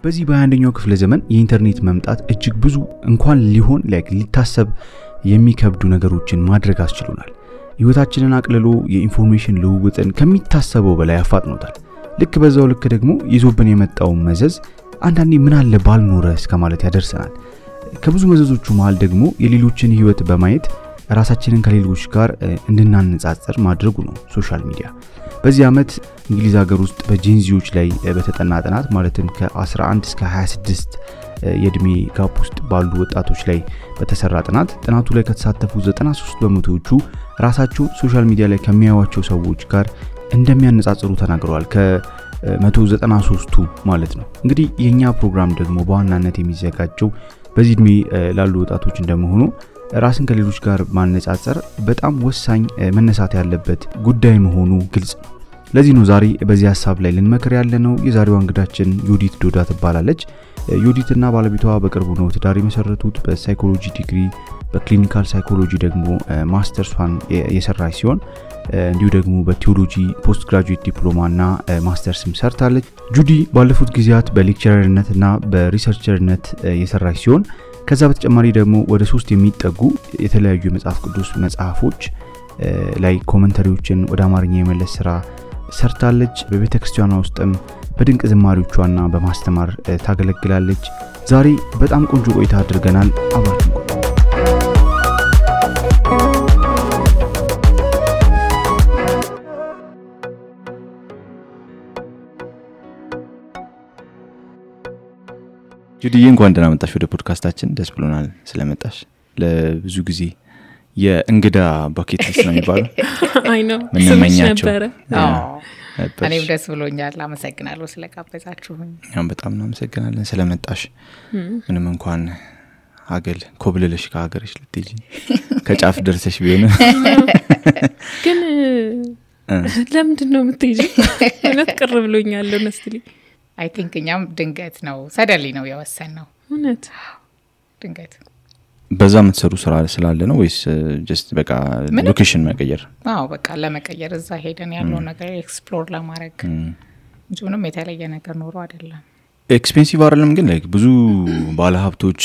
በዚህ በ21ኛው ክፍለ ዘመን የኢንተርኔት መምጣት እጅግ ብዙ እንኳን ሊሆን ሊታሰብ የሚከብዱ ነገሮችን ማድረግ አስችሎናል። ህይወታችንን አቅልሎ የኢንፎርሜሽን ልውውጥን ከሚታሰበው በላይ አፋጥኖታል። ልክ በዛው ልክ ደግሞ ይዞብን የመጣው መዘዝ አንዳንዴ ምን አለ ባልኖረ እስከማለት ያደርሰናል። ከብዙ መዘዞቹ መሃል ደግሞ የሌሎችን ህይወት በማየት ራሳችንን ከሌሎች ጋር እንድናነጻጽር ማድረጉ ነው ሶሻል ሚዲያ። በዚህ ዓመት እንግሊዝ ሀገር ውስጥ በጄንዚዎች ላይ በተጠና ጥናት ማለትም ከ11 እስከ 26 የእድሜ ጋፕ ውስጥ ባሉ ወጣቶች ላይ በተሰራ ጥናቱ ላይ ከተሳተፉ 93%ዎቹ ራሳቸው ሶሻል ሚዲያ ላይ ከሚያዩዋቸው ሰዎች ጋር እንደሚያነጻጽሩ ተናግረዋል። ከ193ቱ ማለት ነው። እንግዲህ የኛ ፕሮግራም ደግሞ በዋናነት የሚዘጋጀው በዚህ እድሜ ላሉ ወጣቶች እንደመሆኑ ራስን ከሌሎች ጋር ማነጻጸር በጣም ወሳኝ መነሳት ያለበት ጉዳይ መሆኑ ግልጽ ነው። ለዚህ ነው ዛሬ በዚህ ሐሳብ ላይ ልንመክር ያለነው። የዛሬዋ እንግዳችን ዮዲት ዶዳ ትባላለች። ዮዲትና ባለቤቷ በቅርቡ ነው ትዳር የመሰረቱት። በሳይኮሎጂ ዲግሪ በክሊኒካል ሳይኮሎጂ ደግሞ ማስተርሷን የሰራች ሲሆን እንዲሁ ደግሞ በቲዮሎጂ ፖስት ግራጁዌት ዲፕሎማና ማስተርስም ሰርታለች። ጁዲ ባለፉት ጊዜያት በሌክቸረርነትና በሪሰርቸርነት የሰራች ሲሆን ከዛ በተጨማሪ ደግሞ ወደ 3 የሚጠጉ የተለያዩ የመጽሐፍ ቅዱስ መጽሐፎች ላይ ኮሜንታሪዎችን ወደ አማርኛ የመለስ ስራ ሰርታለች። በቤተክርስቲያኗ ውስጥም በድንቅ ዝማሬዎቿና በማስተማር ታገለግላለች። ዛሬ በጣም ቆንጆ ቆይታ አድርገናል። አብራችሁ ጁዲ እንኳን ደህና መጣሽ ወደ ፖድካስታችን። ደስ ብሎናል ስለመጣሽ። ለብዙ ጊዜ የእንግዳ ባኬት ሊስት ነው የሚባለው። አይ ነው ምንመኛቸው ነበር። እኔም ደስ ብሎኛል። አመሰግናለሁ ስለጋበዛችሁኝ። እኛም በጣም እናመሰግናለን ስለመጣሽ። ምንም እንኳን ሀገል ኮብልልሽ ከሀገርሽ ልትጂ ከጫፍ ደርሰሽ ቢሆን ግን ለምንድን ነው የምትይጂው? እውነት ቅር ብሎኛል honestly። I think እኛም ድንገት ነው ሰደሊ ነው የወሰነው። እውነት ድንገት በዛ የምትሰሩ ስራ ስላለ ነው ወይስ just በቃ ሎኬሽን መቀየር? አዎ በቃ ለመቀየር እዛ ሄደን ያለው ነገር ኤክስፕሎር ለማድረግ ምንም የተለየ ነገር ኖሮ አይደለም። ኤክስፔንሲቭ አይደለም ግን ብዙ ባለ ሀብቶች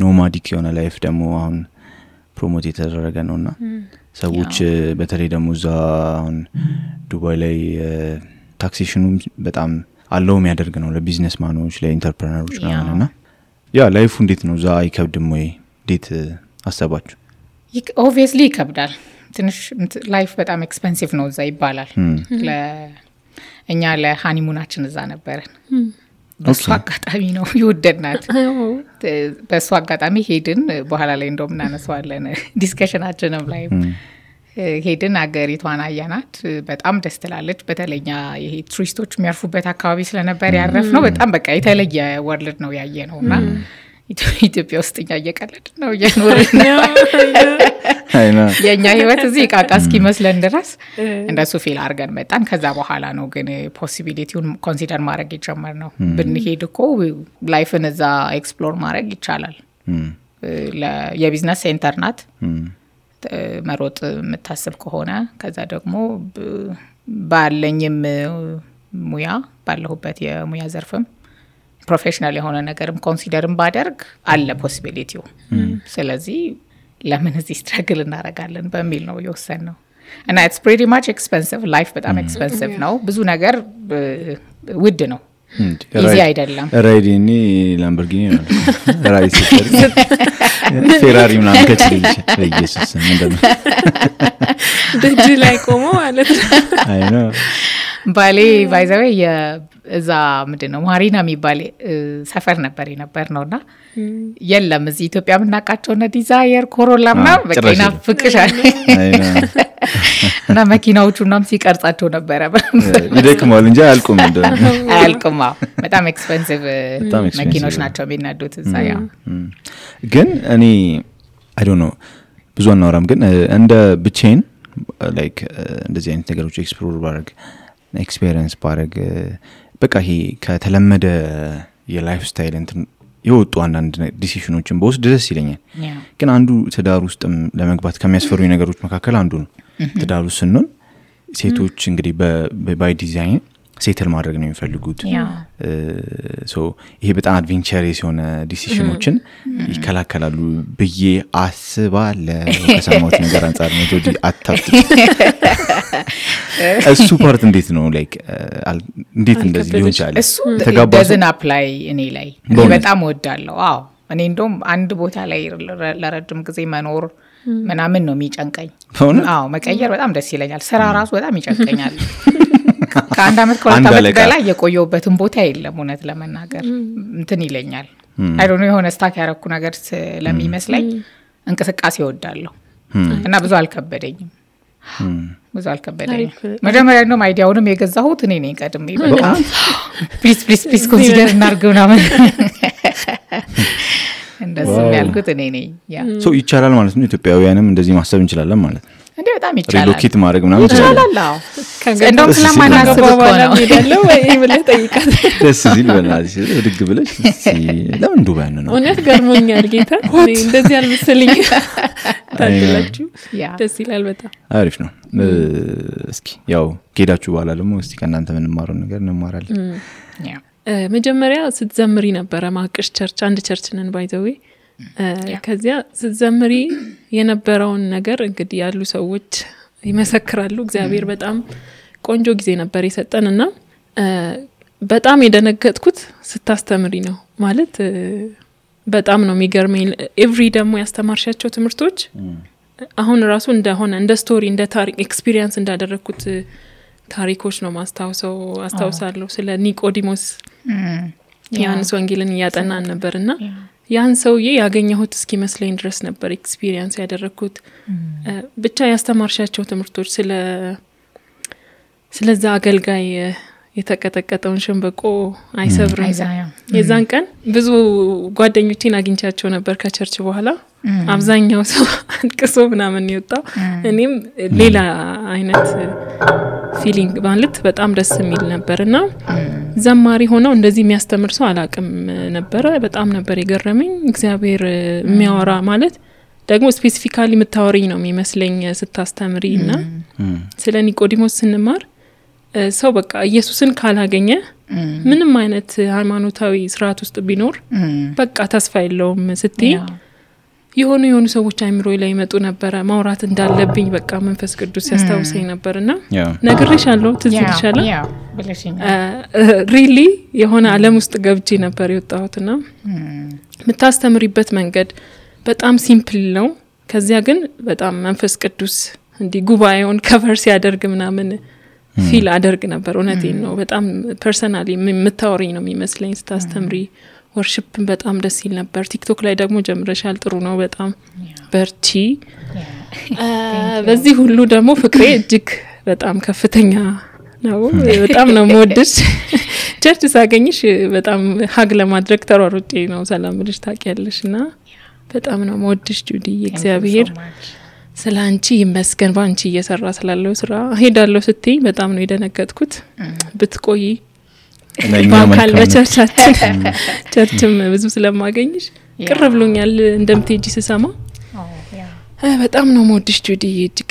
ኖማዲክ የሆነ ላይፍ ደግሞ አሁን ፕሮሞት የተደረገ ነውና ሰዎች በተለይ ደግሞ እዛ አሁን ዱባይ ላይ ታክሴሽኑ በጣም አለው የሚያደርግ ነው ለቢዝነስ ማኖች ለኢንተርፕረነሮች ነውና ላይፉ እንዴት ነው? ዛ አይከብድም ወይ? እንዴት አሰባችሁ? ኦብቪየስሊ ይከብዳል። ትንሽ ላይፍ በጣም ኤክስፔንሲቭ ነው እዛ ይባላል። ለእኛ ለሃኒሙናችን እዛ ነበርን። በሱ አጋጣሚ ነው ይወደድናት። በሱ አጋጣሚ ሄድን። በኋላ ላይ እንደውም እናነሳዋለን ዲስከሽናችንም ላይ ሄድን። አገሪቷን አያናት። በጣም ደስ ትላለች። በተለኛ ይሄ ቱሪስቶች የሚያርፉበት አካባቢ ስለነበር ያረፍነው በጣም በቃ የተለየ ወርልድ ነው ያየነውና ኢትዮጵያ ውስጥ እየቀለድን ነው እየኖርን ነው። የኛ ህይወት እዚህ ቃቃ እስኪመስለን ድረስ እንደሱ ፊል አድርገን መጣን። ከዛ በኋላ ነው ግን ፖሲቢሊቲውን ኮንሲደር ማድረግ የጀመርነው። ብንሄድ እኮ ላይፍን እዛ ኤክስፕሎር ማድረግ ይቻላል። የቢዝነስ ሴንተር ናት። መሮጥ የምታስብ ከሆነ ከዛ ደግሞ ባለኝም ሙያ ባለሁበት የሙያ ዘርፍም ፕሮፌሽናል የሆነ ነገርም ኮንሲደርም ባደርግ አለ ፖሲቢሊቲው። ስለዚህ ለምን እዚህ ስትራግል እናደርጋለን በሚል ነው የወሰንነው። እና it's pretty much expensive life በጣም ኤክስፔንሲቭ ነው። ብዙ ነገር ውድ ነው። እዚህ አይደለም ራይዲኒ ላምበርጊኒ ነው ራይድ ፌራሪ ምናምን ከችልሽ ኢየሱስ ምንድነው ደጅ ላይ ቆሞ ማለት አይ ነው ባሌ ባይዘው የዛ ምንድነው ማሪና የሚባል ሰፈር ነበር ነውና የለም እዚህ ኢትዮጵያ ምናቃቸው እና ዲዛየር ኮሮላ ምናምን በቂና ፍቅሻል እና መኪናዎቹናም ሲቀርጻቸው ነበር ይደክማል እንጂ አያልቁም አያልቁም። በጣም ኤክስፔንሲቭ መኪኖች ናቸው የሚነዱት እዛ። ግን እኔ I don't know ብዙ አናወራም ግን እንደ ብቻዬን like እንደዚህ አይነት ነገሮች ኤክስፕሎር ባረግ ኤክስፒሪየንስ ባረግ በቃ ይሄ ከተለመደ የላይፍ ስታይል እንትን የወጡ አንዳንድ ዲሲሽኖችን በውስጥ ደስ ይለኛል። ግን አንዱ ትዳር ውስጥም ለመግባት ከሚያስፈሩኝ ነገሮች መካከል አንዱ ነው። ትዳር ውስጥ ስንሆን ሴቶች እንግዲህ ባይ ዲዛይን ሴትል ማድረግ ነው የሚፈልጉት ሶ ይሄ በጣም አድቬንቸረስ የሆነ ዲሲሽኖችን ይከላከላሉ ብዬ አስባለሁ ከሰማሁት ነገር አንፃር ነው ጆዲ አታፍጥ እሱ ፓርት እንዴት ነው ላይክ እንዴት እንደዚህ ሊሆን ይችላል እሱ doesn't apply እኔ ላይ በጣም ወዳለሁ አዎ እኔ እንደውም አንድ ቦታ ላይ ለረጅም ጊዜ መኖር ምናምን ነው የሚጨንቀኝ አዎ መቀየር በጣም ደስ ይለኛል ስራ ራሱ በጣም ይጨንቀኛል ከአንድ አመት ከሁለት አመት በላይ የቆየሁበትን ቦታ የለም እውነት ለመናገር እንትን ይለኛል አይ ዶንት ኖ የሆነ ስታክ ያረኩ ነገር ስለሚመስለኝ እንቅስቃሴ እወዳለሁ እና ብዙ አልከበደኝም መጀመሪያ ነው አይዲያውንም የገዛሁት እኔ ነኝ ቀድሜ በቃ ፕሊዝ ኮንሲደር እናርገው ናምን እንደዚህ ያልኩት እኔ ነኝ ያ ሶ ይቻላል ማለት ነው ኢትዮጵያውያንም እንደዚህ ማሰብ እንችላለን ማለት ነው እንዴ በጣም ይቻላል ሪሎኬት ማድረግ ምናምን ይችላል እንደውም ስለማናስብ እኮ ነው ይደለው ወይ ብለህ ጠይቃት ደስ ሲል በላሽ ድግ ብለሽ ለምን ዱባይ ነው እውነት ገርሞኛል ጌታ እንደዚህ አልመሰለኝ ታድላችሁ ደስ ይላል በጣም አሪፍ ነው እስኪ ያው ጌዳችሁ በኋላ ደግሞ እስቲ ከእናንተ ምን ማረው ነገር እንማራለን መጀመሪያ ስትዘምሪ ነበር ማቅሽ ቸርች አንድ ቸርች ነን ባይዘዌ ከዚያ ስትዘምሪ የነበረውን ነገር እንግዲህ ያሉ ሰዎች ይመሰክራሉ እግዚአብሔር በጣም ቆንጆ ጊዜ ነበር የሰጠንና በጣም የደነገጥኩት ስታስተምሪ ነው ማለት በጣም ነው የሚገርመኝ ኤቭሪ ደግሞ ያስተማርሻቸው ትምህርቶች አሁን ራሱ እንደሆነ እንደ ስቶሪ እንደ ታሪክ ኤክስፒሪየንስ እንዳደረኩት ታሪኮች ነው አስታውሳለሁ ስለ ኒቆዲሞስ ዮሐንስ ወንጌልን ያጠናን ነበርና ያን ሰውዬ ያገኘሁት እስኪመስለኝ ድረስ ነበር ኤክስፒሪየንስ ያደረኩት ብቻ ያስተማርሻቸው ትምህርቶች ስለዛ አገልጋይ የተቀጠቀጠውን ሸንበቆ አይሰብርም የዛን ቀን ብዙ ጓደኞቼን አግኝቻቸው ነበር ከቸርች በኋላ አብዛኛው ሰው አንቅሶ ምናምን ይወጣው እኔም ሌላ አይነት ፊሊንግ ማለት በጣም ደስ የሚል ነበርና ዘማሪ ሆነው እንደዚህ የሚያስተምር ሰው አላቅም ነበር በጣም ነበር የገረመኝ እግዚአብሔር የሚያወራ ማለት ደግሞ ስፔሲፊካሊ የምታወሪኝ ነው የሚመስለኝ ስታስተምሪና ስለ ኒቆዲሞስ ስንማር ሰው በቃ ኢየሱስን ካላገኘ ምንም አይነት ሃይማኖታዊ ስርዓት ውስጥ ቢኖር በቃ ተስፋ የለውም ስትይ የሆኑ ሰዎች አይምሮይ ላይ መጡ ነበር ማውራት እንዳለብኝ በቃ መንፈስ ቅዱስ ያስታውሰኝ ነበርና ነግሬሻለሁ ትዝልሻለሁ ሪሊ የሆነ ዓለም ውስጥ ገብቼ ነበር የወጣሁትና ምታስተምሪበት መንገድ በጣም ሲምፕል ነው ከዚያ ግን በጣም መንፈስ ቅዱስ እንዲ ጉባኤውን ከቨር ሲያደርግ ምናምን ፊል አደርግ ነበር እውነቴን ነው በጣም ፐርሰናሊ የምታወሪኝ ነው የሚመስለኝ ስታስተምሪ ወርሺፕን በጣም ደስ ይል ነበር ቲክቶክ ላይ ደግሞ ጀምረሻል ጥሩ ነው በጣም በርቺ በዚህ ሁሉ ደግሞ ፍቅሬ እጅግ በጣም ከፍተኛ ነው በጣም ነው ሞድሽ ቸርች ሳገኝሽ በጣም ሀግ ለማድረግ ተሯሩጬ ነው ሰላም ልጅ ታውቂያለሽና በጣም ነው ሞድሽ ጁዲ እግዚአብሔር ስላንቺ ይመስገን ባንቺ እየሰራ ስላለው ስራ ሄዳለሁ ስትይ በጣም ነው የደነገጥኩት ብትቆይ ባካል በቸርቻችን ቸርችም ብዙ ስለማገኝሽ ቅር ብሎኛል እንደምትሄጂ ስሰማ በጣም ነው ሞድሽ ጁዲ እጅግ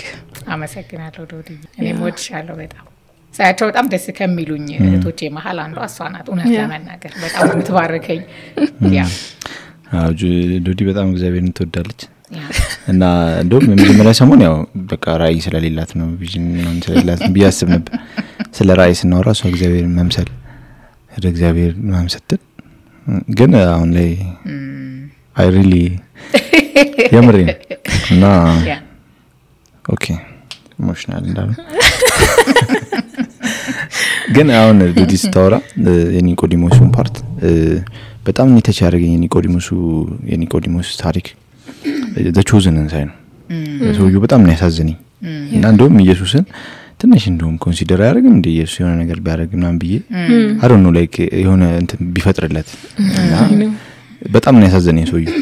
አመሰግናለሁ ዶዲ እኔ ሞድሻለሁ በጣም ሳያቸው በጣም ደስ ከሚሉኝ እህቶቼ መሃል አንዷ እሷ ናት እውነት ለመናገር በጣም የምትባርከኝ ያ ዶዲ በጣም እግዚአብሔርን ትወዳለች እና እንደውም የመጀመሪያ ሰሞን ያው በቃ ራእይ ስለሌላት ነው ቪዥን ምናምን ስለሌላት ቢያስብ ነበር ስለ ራእይ ስናወራ እሷ እግዚአብሔርን መምሰል ወደ እግዚአብሔር መምሰል ግን አሁን ላይ አይ ሪሊ የምሬ እና ኦኬ ኢሞሽናል እንዳለ ግን አሁን ዶዲ ስታወራ የኒቆዲሞስን ፓርት በጣም ኒተች ያደረገኝ የኒቆዲሞስ ታሪክ the chosen እንሳይ ነው ሰውዬው በጣም ነው ያሳዝነኝ እና እንደውም ኢየሱስን ትንሽ እንደውም ኮንሲደር ያደርግም እንደ ኢየሱስ የሆነ ነገር ቢያደርግ ምናምን ብዬ I don't know like የሆነ እንትን ቢፈጥርለት እና በጣም ነው ያሳዝነኝ ሰውዬው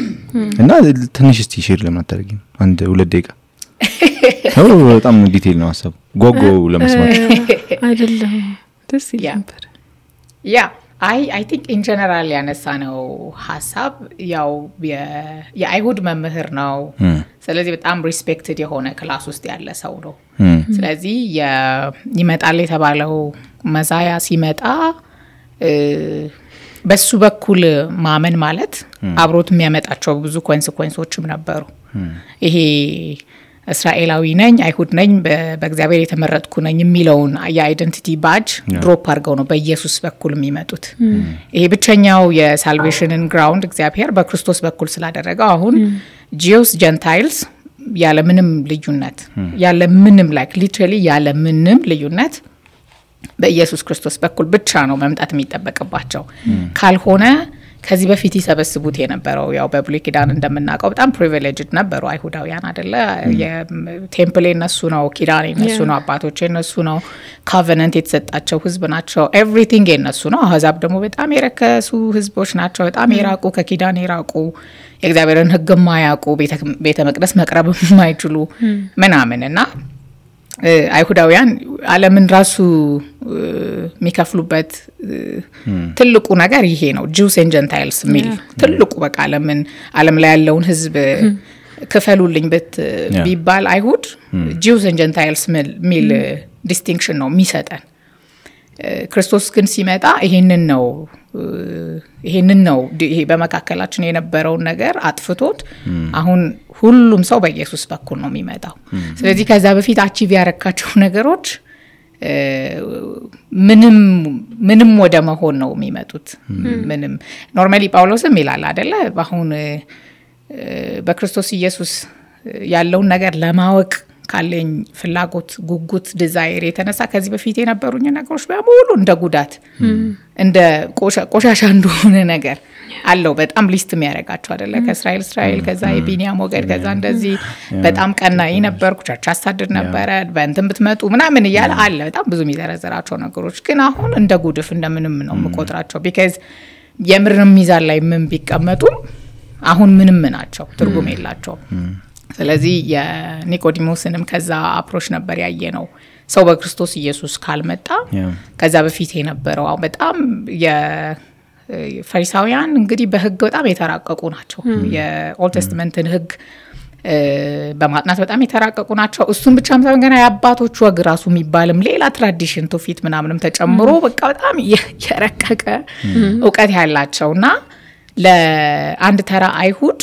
እና ትንሽ እስቲ ሼር ለማታደርጊም አንድ 2 ደቂቃ በጣም ዲቴል ነው ሐሳቡ ጎጎ ለመስማት አይደለም ደስ ይላል ያ I think in general ያነሳነው ሐሳብ ያው የአይሁድ መምህር ነው ስለዚህ በጣም ሪስፔክትድ የሆነ ክላስ ውስጥ ያለ ሰው ነው ስለዚህ ይመጣል የተባለው መዛያ ሲመጣ በሱ በኩል ማመን ማለት አብሮት የሚያመጣቸው ብዙ ኮንሲኩዌንሶችም ነበሩ። ይሄ እስራኤላዊ ነኝ አይሁድ ነኝ በእግዚአብሔር የተመረጥኩ ነኝ የሚለውን የአይደንቲቲ ባጅ ድሮፕ አድርገው ነው በኢየሱስ በኩል የሚመጡት። ይሄ ብቸኛው የሳልቬሽንን ግራውንድ እግዚአብሔር በክርስቶስ በኩል ስላደረገው አሁን ጂውስ ጀንታይልስ ያለ ምንም ልዩነት ያለ ምንም ላይክ ሊትራሊ ያለ ምንም ልዩነት በኢየሱስ ክርስቶስ በኩል ብቻ ነው መምጣት የሚጠበቅባቸው። ካልሆነ ከዚህ በፊት ይሰበስቡት የነበረው ያው በብሉይ ኪዳን እንደምናውቀው በጣም ፕሪቪሌጅድ ነበሩ አይሁዳውያን አይደለ? የቴምፕል እነሱ ነው፣ ኪዳን እነሱ ነው፣ አባቶች እነሱ ነው፣ ኮቨናንት የተሰጣቸው ህዝብ ናቸው፣ ኤቭሪቲንግ እነሱ ነው። አህዛብ ደግሞ በጣም የረከሱ ህዝቦች ናቸው፣ በጣም የራቁ ከኪዳን የራቁ የእግዚአብሔርን ህግ የማያውቁ ቤተ መቅደስ መቅረብ የማይችሉ ምናምንና አይሁዳውያን ዓለምን ራሱ የሚከፍሉበት ትልቁ ነገር ይሄ ነው። ጂውስ ኤንድ ጀንታይልስ ሚል ትልቁ በቃ ዓለም ላይ ያለውን ህዝብ ክፈሉልኝ ቢባል አይሁድ ጂውስ ኤንድ ጀንታይልስ ሚል ዲስቲንክሽን ነው የሚሰጠን። ክርስቶስ ግን ሲመጣ ይሄንን ነው ይሄ በመካከላችን የነበረውን ነገር አጥፍቶት አሁን ሁሉም ሰው በኢየሱስ በኩል ነው የሚመጣው። ስለዚህ ከዛ በፊት አቺቭ ያረካቸው ነገሮች ምንም ወደ መሆን ነው የሚመጡት። ምንም ኖርማሊ ጳውሎስም ይላል አይደለ? አሁን በክርስቶስ ኢየሱስ ያለውን ነገር ለማወቅ ካለኝ ፍላጎት ጉጉት ዲዛይር የተነሳ ከዚህ በፊት የነበሩኝ ነገሮች በሙሉ እንደ ጉዳት እንደ ቆሻሻ እንደሆነ ነገር አለው በጣም ሊስት የሚያረጋቸው አይደለ? ከእስራኤል ከዛ የቢንያም ወገድ ከዛ እንደዚህ በጣም ቀናኢ ነበርኩ፣ ቸርች አሳድድ ነበረ፣ በእንትን ብትመጡ ምናምን እያለ አለ በጣም ብዙ የሚዘረዘራቸው ነገሮች። ግን አሁን እንደ ጉድፍ እንደምንም ነው የምቆጥራቸው። ቢካዝ የምርም ሚዛን ላይ ምን ቢቀመጡ አሁን ምንም ናቸው፣ ትርጉም የላቸውም። ስለዚህ የኒቆዲሞስንም ከዛ አፕሮች ነበር ያየ ነው። ሰው በክርስቶስ ኢየሱስ ካልመጣ ከዛ በፊት የነበረው በጣም የፈሪሳውያን እንግዲህ በህግ በጣም የተራቀቁ ናቸው። የኦልድ ቴስተመንትን ህግ በማጥናት በጣም የተራቀቁ ናቸው። እሱን ብቻም ሳይሆን ገና የአባቶቹ ወግ ራሱ የሚባልም ሌላ ትራዲሽን ትውፊት ምናምንም ተጨምሮ በቃ በጣም የረቀቀ እውቀት ያላቸውና ለአንድ ተራ አይሁድ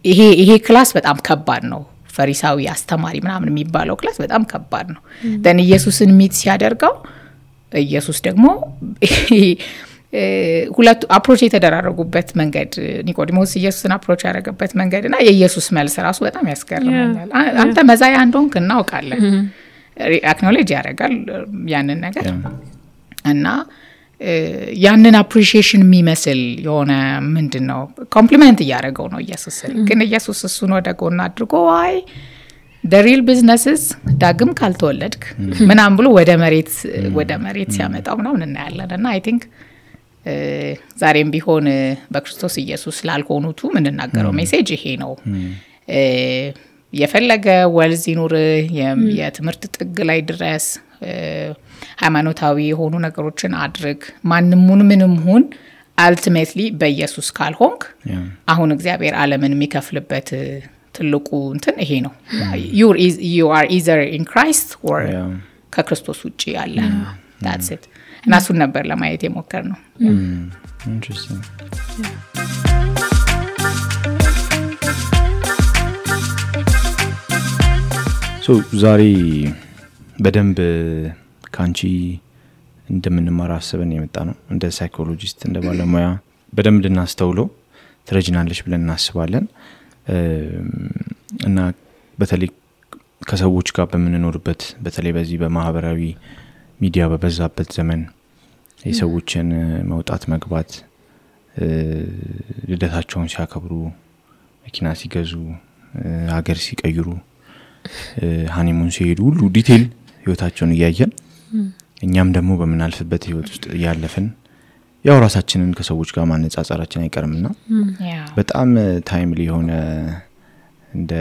ይሄ ክላስ በጣም ከባድ ነው። ፈሪሳዊ አስተማሪ ምናምን የሚባለው ክላስ በጣም ከባድ ነው። ደን ኢየሱስን ሚት ሲያደርገው ኢየሱስ ደግሞ ሁለቱ አፕሮች የተደራረጉበት መንገድ ኒቆዲሞስ ኢየሱስን አፕሮች ያደረገበት መንገድና የኢየሱስ መልስ ራሱ በጣም ያስገርመኛል። አንተ መዛያ እንደሆንክ እናውቃለን፣ አክኖሌጅ ያደርጋል ያንን ነገር እና ያንን አፕሪሺዬሽን የሚመስል የሆነ ምንድነው ኮምፕሊመንት እያደረገው ነው ኢየሱስ። ግን ኢየሱስ እሱን ወደ ጎን አድርጎ አይ the real businesses ዳግም ካልተወለድክ ምናምን ብሎ ወደ መሬት ሲያመጣው ምናምን እናያለን። እና አይ ቲንክ ዛሬም ቢሆን በክርስቶስ ኢየሱስ ላልሆኑቱ ምንናገረው ሜሴጅ ይሄ ነው። የፈለገ ወልዝ ይኑር፣ የትምህርት ጥግ ላይ ድረስ ሃይማኖታዊ የሆኑ ነገሮችን አድርግ፣ ምንም ሁን አልቲሜትሊ በኢየሱስ ካልሆንክ አሁን እግዚአብሔር ዓለምን የሚከፍልበት ትልቁ እንትን ይሄ ነው። you are either in Christ or ከክርስቶስ ውጪ ያለ that's it። እና እሱን ነበር ለማየት የሞከር ነው። Interesting. So ዛሬ በደንብ ካንቺ እንደምንማር አስበን የመጣ ነው። እንደ ሳይኮሎጂስት እንደ ባለሙያ በደንብ እንድናስተውለው ትረጅናለሽ ብለን እናስባለን። እና በተለይ ከሰዎች ጋር በምንኖርበት በተለይ በዚህ በማህበራዊ ሚዲያ በበዛበት ዘመን የሰዎችን መውጣት መግባት፣ ልደታቸውን ሲያከብሩ፣ መኪና ሲገዙ፣ ሀገር ሲቀይሩ፣ ሃኒሙን ሲሄዱ ሁሉ ዲቴል ህይወታቸውን እያየን እኛም ደግሞ በመናልፍበት ህይወት ውስጥ ያለፈን ያው ራሳችንን ከሰዎች ጋር ማነጻጸራችን አይቀርምና በጣም ታይምሊ የሆነ እንደ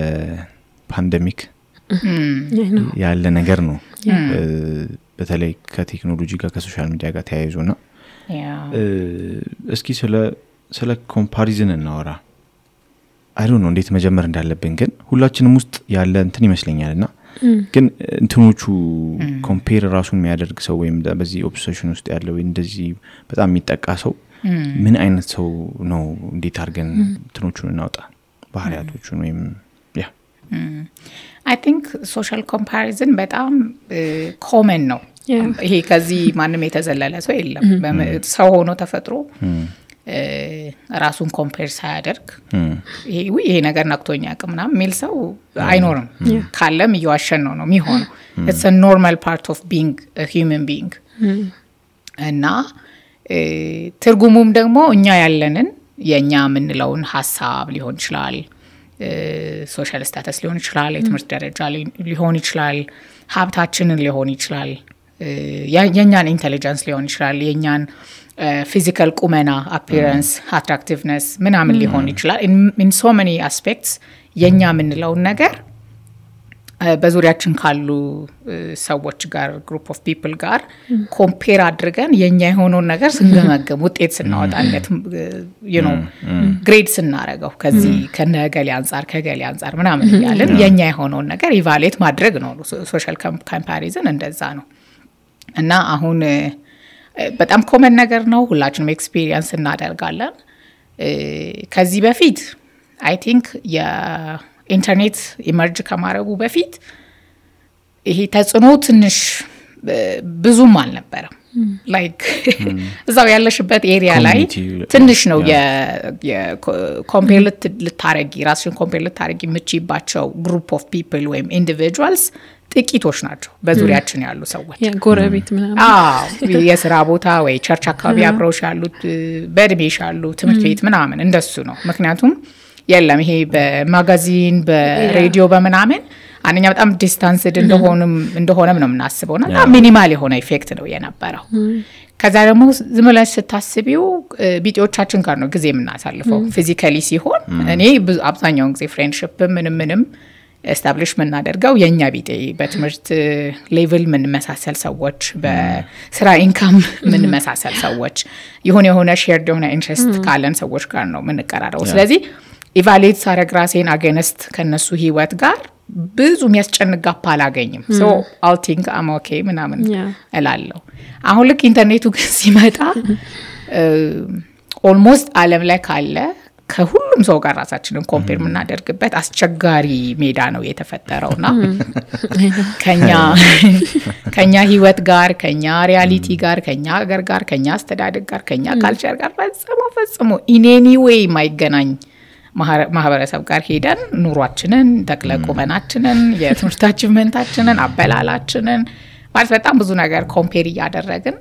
ፓንደሚክ ያለ ነገር ነው። በተለይ ከቴክኖሎጂ ጋር ከሶሻል ሚዲያ ጋር ተያይዞና እስኪ ስለ ኮምፓሪዝን እናወራ። አይ ዶንት ኖ እንዴት መጀመር እንዳለብን ግን ሁላችንም ውስጥ ያለ እንትን ይመስለኛልና ግን እንትኖቹ ኮምፔር ራሱን የሚያደርግ ሰው ወይም በዚህ ኦብሰሽን ውስጥ ያለው እንደዚህ በጣም የሚጠቃ ሰው ምን አይነት ሰው ነው እንዴት አድርገን እንትኖቹን እናውጣ ባህሪያቶቹን ወይም I think social comparison በጣም common ነው ይሄ ከዚህ ማንም የተዘለለ ሰው የለም ሰው ሆኖ ተፈጥሮ ራሱን ኮምፔር ሳያደርግ ይሄ ነገር ነክቶኛ አቅምና ሚል ሰው አይኖርም ካለም ይዋሸን ነው የሚሆነው it's a normal part of being a human being እና ትርጉሙም ደግሞ እኛ ያለንን የኛ ምንለውን ሐሳብ ሊሆን ይችላል ሶሻል ስታተስ ሊሆን ይችላል የትምህርት ደረጃ ሊሆን ይችላል ሀብታችንን ሊሆን ይችላል የኛን ኢንተለጀንስ ሊሆን ይችላል የኛን ፊዚካል ቁመና አፒራንስ አትራክቲቭነስ ምናምን ሊሆን ይችላል in so many aspects የኛ ምንለው ነገር በዙሪያችን ካሉ ሰዎች ጋር ግሩፕ ኦፍ ፒፕል ጋር ኮምፔር አድርገን የኛ የሆነው ነገር ስንገመገም ውጤት ስናወጣለት you know ግሬድ ስናረጋው ከዚህ ከነገሌ አንፃር ምናምን ያለን የኛ የሆነው ነገር ኢቫሉዌት ማድረግ ነው ሶሻል ኮምፓሪዝን እንደዛ ነው እና አሁን በጣም ኮመን ነገር ነው ሁላችንም ኤክስፒሪየንስ እናደርጋለን ከዚህ በፊት I think ኢንተርኔት ኢመርጅ ከማረጉ በፊት ይሄ ተጽዕኖ ትንሽ ብዙም አልነበረም ላይክ እዛው ያለሽበት ኤሪያ ላይ ትንሽ ነው የኮምፔር ልታረጊ ራስሽን ኮምፔር ልታረጊ ምቺባቸው ግሩፕ ኦፍ ፒፕል ወይም ኢንዲቪጁዋልስ ጥቂቶች ናቸው በዙሪያችን ያሉ ሰዎች ጎረቤት ምናምን የሥራ ቦታ ወይ ቸርች አካባቢ አብረውሽ ያሉት በእድሜሽ ያሉ ትምህርት ቤት ምናምን እንደሱ ነው ምክንያቱም የለም ይሄ በማጋዚን በሬዲዮ በመናምን አንኛ በጣም ዲስታንስድ እንደሆነም ነው የምናስበውና ሚኒማል የሆነ ኢፌክት ነው የነበረው ከዛ ደግሞ ዝምብለሽ ስታስቢው ቢጤዎቻችን ጋር ነው ጊዜ የምናሳልፈው ፊዚካሊ ሲሆን እኔ አብዛኛውን ጊዜ ፍሬንድሺፕ ምንም ኤስታብሊሽ ምናደርገው የኛ ቢጤ በትምህርት ሌቭል ምን መሳሰል ሰዎች በስራ ኢንካም ምን መሳሰል ሰዎች የሆነ ሼርድ የሆነ ኢንትረስት ካለን ሰዎች ጋር ነው ምንቀራረው ስለዚህ ኢቫሉዌት ሳረግ ራሴን አገነስት ከነሱ ህይወት ጋር ብዙ የሚያስጨንቅ ጋፕ አላገኝም so I'll think I'm okay ምናምን እላለሁ አሁን ልክ ኢንተርኔቱ ግን ሲመጣ ኦልሞስት ዓለም ላይ ካለ ከሁሉም ሰው ጋር ራሳችንን ኮምፔር ምናደርግበት አስቸጋሪ ሜዳ ነው የተፈጠረውና ከኛ ህይወት ጋር ከኛ ሪያሊቲ ጋር ከኛ ሀገር ጋር ከኛ አስተዳደግ ጋር ከኛ ካልቸር ጋር ፈጽሞ in any way ማይገናኝ ማህበረሰብ ጋር ሄደን ኑሯችንን ተክለቁመናችንን የትምህርት አቺቭመንታችንን አበላላችንን ማለት በጣም ብዙ ነገር ኮምፔር ያደረግን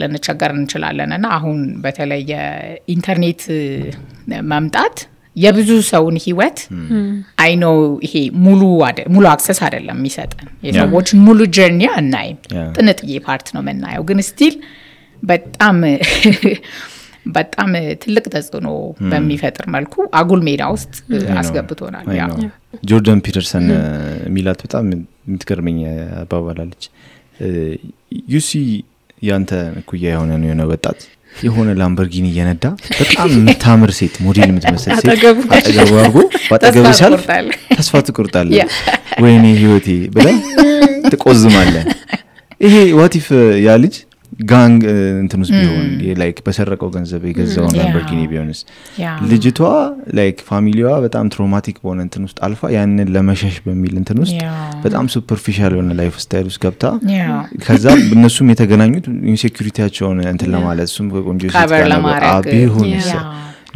ለነቸገር እንችላለንና አሁን በተለይ የኢንተርኔት መምጣት የብዙ ሰውን ህይወት አይ ኖ ይሄ ሙሉ አክሰስ አይደለም የሚሰጠን የሰዎች ሙሉ ጀርኒ አናይም ጥንጥዬ ፓርት ነው መናየው ግን ስቲል በጣም ትልቅ ተጽዕኖ በሚፈጥር መልኩ አጉል ሜዳ ውስጥ አስገብቶናል ጆርዳን ፒተርሰን ሚላት በጣም የምትገርመኝ አባባላለች ዩሲ ያንተ ኩያ የሆነ ወጣት የሆነ ላምበርጊኒ እየነዳ በጣም የምታምር ሴት ሞዴል የምትመስል ሴት አጠገቡ አርጎ ባጠገቡ ሲያልፍ ተስፋ ትቆርጣለህ ወይኔ ህይወቴ ብለህ ትቆዝማለህ ይሄ what if ያ ልጅ ጋንግ እንትንስ ቢሆን ላይክ በሰረቀው ገንዘብ የገዛው ላምበርጊኒ ቢሆንስ ልጅቷ ላይክ ፋሚሊዋ በጣም ትራውማቲክ በሆነ እንትን ውስጥ አልፋ ያንን ለመሸሽ በሚል እንትን ውስጥ በጣም ሱፐርፊሻል የሆነ ላይፍ ስታይል ውስጥ ገብታ ከዛ እነሱም የተገናኙት ኢንሴኩሪቲያቸውን እንትን ለማለት እሱም ቆንጆ ሴት ጋር ቢሆንስ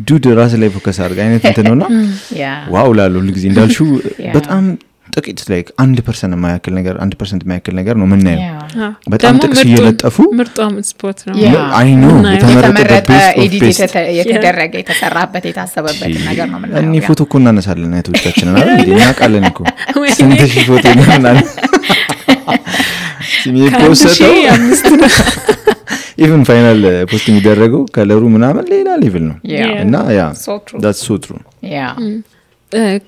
ዱድ ራስ ላይ ፎከስ አድርጋ አይነት እንትን ነውና ዋው ላሉ ልጅ እንዳልሽው በጣም ጥቂት ላይክ 1% የማያክል ነገር 1% የማያክል ነገር ነው ምናየው በጣም ጥቅስ እየለጠፉ ምርጧም ስፖርት ነው አይ ኖ የተመረጠ ኤዲት የተደረገ የተሰራበት የታሰበበት ነገር ነው ምናየው እኔ ፎቶ እኮ እናነሳለን አይቶቻችንን አይደል እንዴ እናቃለን እኮ ስንትሽ ፎቶ እናነሳለን ሲሚ ፖስተው even ፋይናል ፖስት የሚደረገው ከለሩ ምናምን ሌላ ሌቭል ነው እና ያ that's so true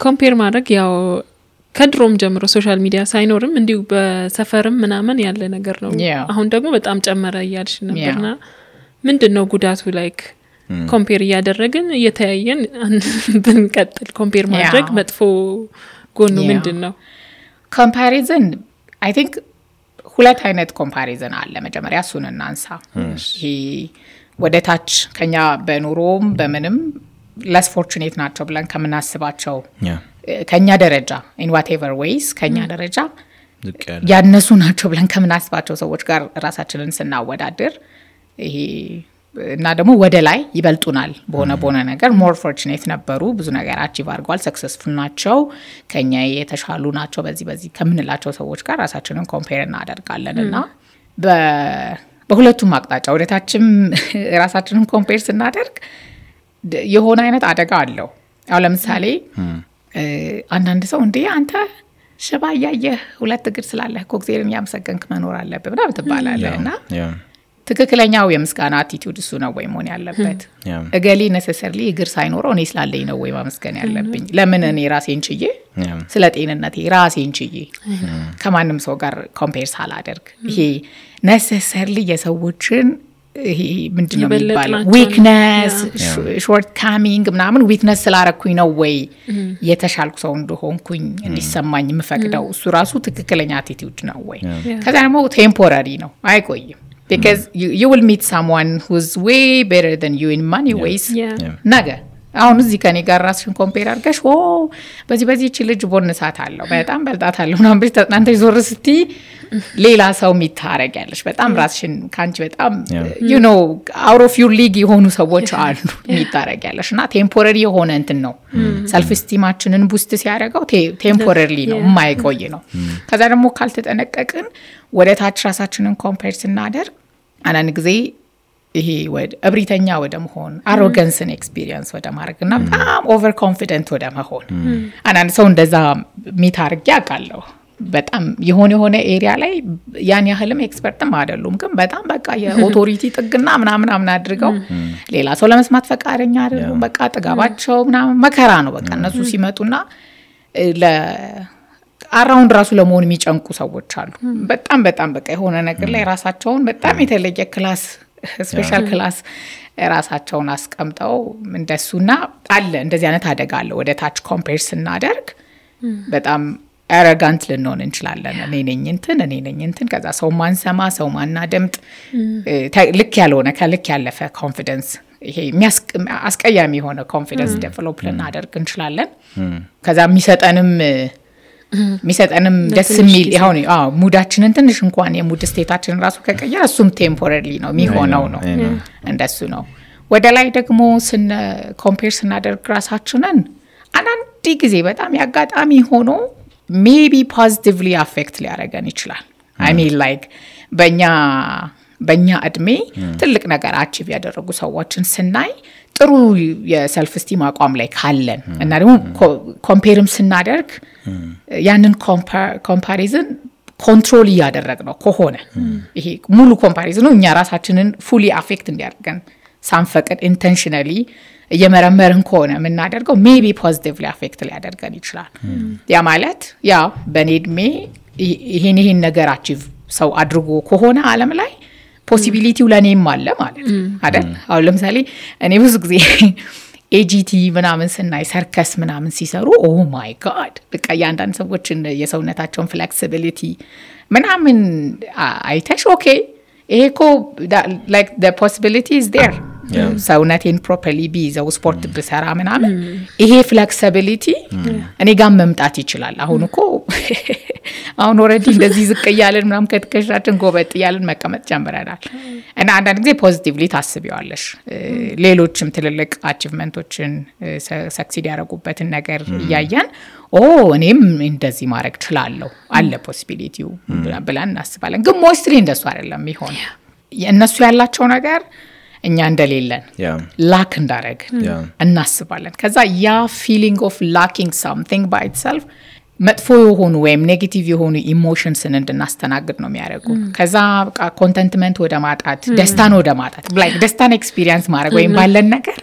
ኮምፔር ማድረግ ያው ከድሮም ጀምሮ ሶሻል ሚዲያ ሳይኖርም እንዲሁ በሰፈርም ምናምን ያለ ነገር ነው አሁን ደግሞ በጣም ጨመረ ያልሽ ነበርና ምንድነው ጉዳቱ ላይክ ኮምፔር ያደረግን እየተያየን ብንቀጥል ኮምፔር ማድረግ መጥፎ ጎኑ ምንድነው ኮምፓሪዝን I think ሁለት አይነት ኮምፓሪዝን አለ መጀመሪያ እሱን እናንሳ ይሄ ወደ ታች ከኛ በኑሮም በምንም less fortunate ናቸው ብለን ከምናስባቸው ከኛ ደረጃ in whatever ways ከኛ ደረጃ ያነሱ ናቸው ብለን ከምናስባቸው ሰዎች ጋር ራሳችንን ስናወዳድር ይሄ እና ደግሞ ወደ ላይ ይበልጡናል በሆነ ነገር more fortunate ነበሩ ብዙ ነገር achieve አድርገዋል successful ናቸው ከኛ የተሻሉ ናቸው በዚህ ከምንላቸው ሰዎች ጋር ራሳችንን compare እናደርጋለንና በሁለቱም አቅጣጫ ወደታችም ራሳችንን compare ስናደርግ የሆነ አይነት አደጋ አለው አሁን ለምሳሌ አንዳንድ ሰው እንዴ አንተ ሽባ ያየህ ሁለት እግር ስላለህ ኮክቴልን ያመሰገንክ መኖር አለበት ብላ ትባላለህና ትክክለኛው የምስጋና አቲቲዩድ እሱ ነው ወይ መሆን ያለበት እገሊ necessarily እግር ሳይኖረው እኔ ስላለኝ ነው ወይ ማመስገን ያለብኝ ለምን እኔ ራሴን ችዬ ስለ ጤንነቴ ራሴን ችዬ ከማንም ሰው ጋር ኮምፔር ሳላደርግ ይሄ necessarily የሰዎችን ይሄ ምንድነው የሚባለው weakness shortcoming ምናምን weakness ስላረኩኝ ነው ወይ የተሻልኩ ሰው እንደሆንኩኝ እንዲሰማኝ የምፈቅደው እሱ ራሱ ትክክለኛ አቲቲዩድ ነው ወይ ከዛ ደግሞ temporary ነው አይቆይም because you will meet someone who's way better than you in money ways ነገ አሁን እዚህ ከኔ ጋር ራስሽን ኮምፔር አድርገሽ በዚህ እቺ ልጅ ቦነሳት አለው በጣም በልጣታለሁ ምናምን ብለሽ ተጣንተ ይዞር እስቲ ሌላ ሰው የሚታረጋለሽ በጣም ራስሽን ካንቺ በጣም you know out of your league የሆኑ ሰዎች አሉ የሚታረጋለሽ እና ቴምፖራሪ የሆነ እንትን ነው ሰልፍ ስቲማችንን ቡስት ሲያደርገው ቴምፖራሪ ነው የማይቆይ ነው ከዛ ደግሞ ካልተጠነቀቅን ወደ ታች ራሳችንን ኮምፔር ስናደርግ አንዳንድ ጊዜ ይሄ እብሪተኛ ወደ መሆን አሮጋንስን ኤክስፒሪየንስ ወደ ማድረግና በጣም ኦቨር ኮንፊደንት ወደ መሆን አንዳንድ ሰው እንደዛ ሚታርግ ያውቃለሁ በጣም የሆነ ኤሪያ ላይ ያን ያህልም ኤክስፐርትም አይደሉም ግን በጣም በቃ የኦቶሪቲ ጥግና ምናምን አድርገው ሌላ ሰው ለመስማት ፈቃደኛ አይደሉም በቃ ጥጋባቸው ምናምን መከራ ነው በቃ እነሱ ሲመጡና አራውንድ ራሱ ለመሆን የሚጨንቁ ሰዎች አሉ በጣም በቃ የሆነ ነገር ላይ ራሳቸውን በጣም የተለየ ክላስ ስፔሻል ክላስ ራሳቸውን አስቀምጠው እንደሱና አለ እንደዚህ አይነት አደጋ አለ ወደ ታች ኮምፔር ስናደርግ በጣም arrogant ልንሆን እንችላለን እኔ ነኝ እንትን ከዛ ሰው ማንሰማ ሰው ማናደምጥ ልክ ያልሆነ ከልክ ያለፈ ኮንፊደንስ ይሄ አስቀያሚ የሆነ ኮንፊደንስ ዴቨሎፕ ልናደርግ እንችላለን ከዛ የሚሰጠንም ደስ የሚል ይሁን ሙዳችንን ትንሽ እንኳን የሙድ ስቴታችንን ራሱ ከቀየረ እሱም ቴምፖራሪ ነው የሚሆነው ነው እንደሱ ነው ወደ ላይ ደግሞ ኮምፔር ስናደርግ ራሳችንን አንዳንድ ጊዜ በጣም ያጋጣሚ ሆኖ maybe positively affect ሊያደርገን ይችላል I mean like በእኛ እድሜ ትልቅ ነገር አቺቭ ያደረጉ ሰዎችን ስናይ ጥሩ የሰልፍ ስቲም አቋም ላይ ካለን እና ደግሞ ኮምፔርም ስናደርግ ያንን ኮምፓሪዝን ኮንትሮል ያደረግነው ከሆነ ይሄ ሙሉ ኮምፓሪዝኑ እኛ ራሳችንን fully affect እንዲያደርገን ሳንፈቅድ intentionally የመረመርን ከሆነ ምናደርገው maybe positively affect ሊያደርገን ይችላል ያ ማለት ያ በኔድሜ ይሄን ነገር አቺቭ ሰው አድርጎ ከሆነ ዓለም ላይ ፖሲቢሊቲው ለኔም አለ ማለት አይደል አሁን ለምሳሌ እኔ ብዙ ጊዜ ኤጂቲ ምናምን ስናይ ሰርከስ ምናምን ሲሰሩ ኦ ማይ ጋድ በቃ ያንዳንድ ሰዎችን የሰውነታቸውን ፍሌክሲቢሊቲ ምናምን አይተሽ ኦኬ ኤኮ like the possibility is there ሰውነቴን ፕሮፐርሊ ቢይዘው ስፖርት ብሰራ ምናምን ይሄ ፍሌክሲቢሊቲ እኔ ጋር መምጣት ይችላል አሁን እኮ አሁን ኦሬዲ እንደዚህ ዝቅ ያለን ምናምን ከተከሻችን ጎበጥ ያለን መቀመጥ ጀምረናል እና አንዳንድ ጊዜ ፖዚቲቭሊ ታስቢዋለሽ ሌሎችም ትልልቅ አቺቭመንቶችን ሰክሲድ ያደረጉበትን ነገር ያያያን እኔም እንደዚህ ማድረግ እችላለሁ አለ ፖሲቢሊቲው ብለን እናስባለን ግን ሞስትሊ እንደሱ አይደለም ይሆን እነሱ ያላቸው ነገር እኛ እንደሌለን ላክ እንዳረግ እናስባለን ከዛ ያ feeling of lacking something by itself መጥፎ የሆኑ ወይም ኔጌቲቭ የሆኑ ኢሞሽንስን እንድናስተናግድ ነው የሚያደርጉ ከዛ በቃ ኮንተንትመንት ወደ ማጣት ደስታን ወደ ማጣት like ደስታን ኤክስፒሪየንስ ማድረግ ወይም ባለን ነገር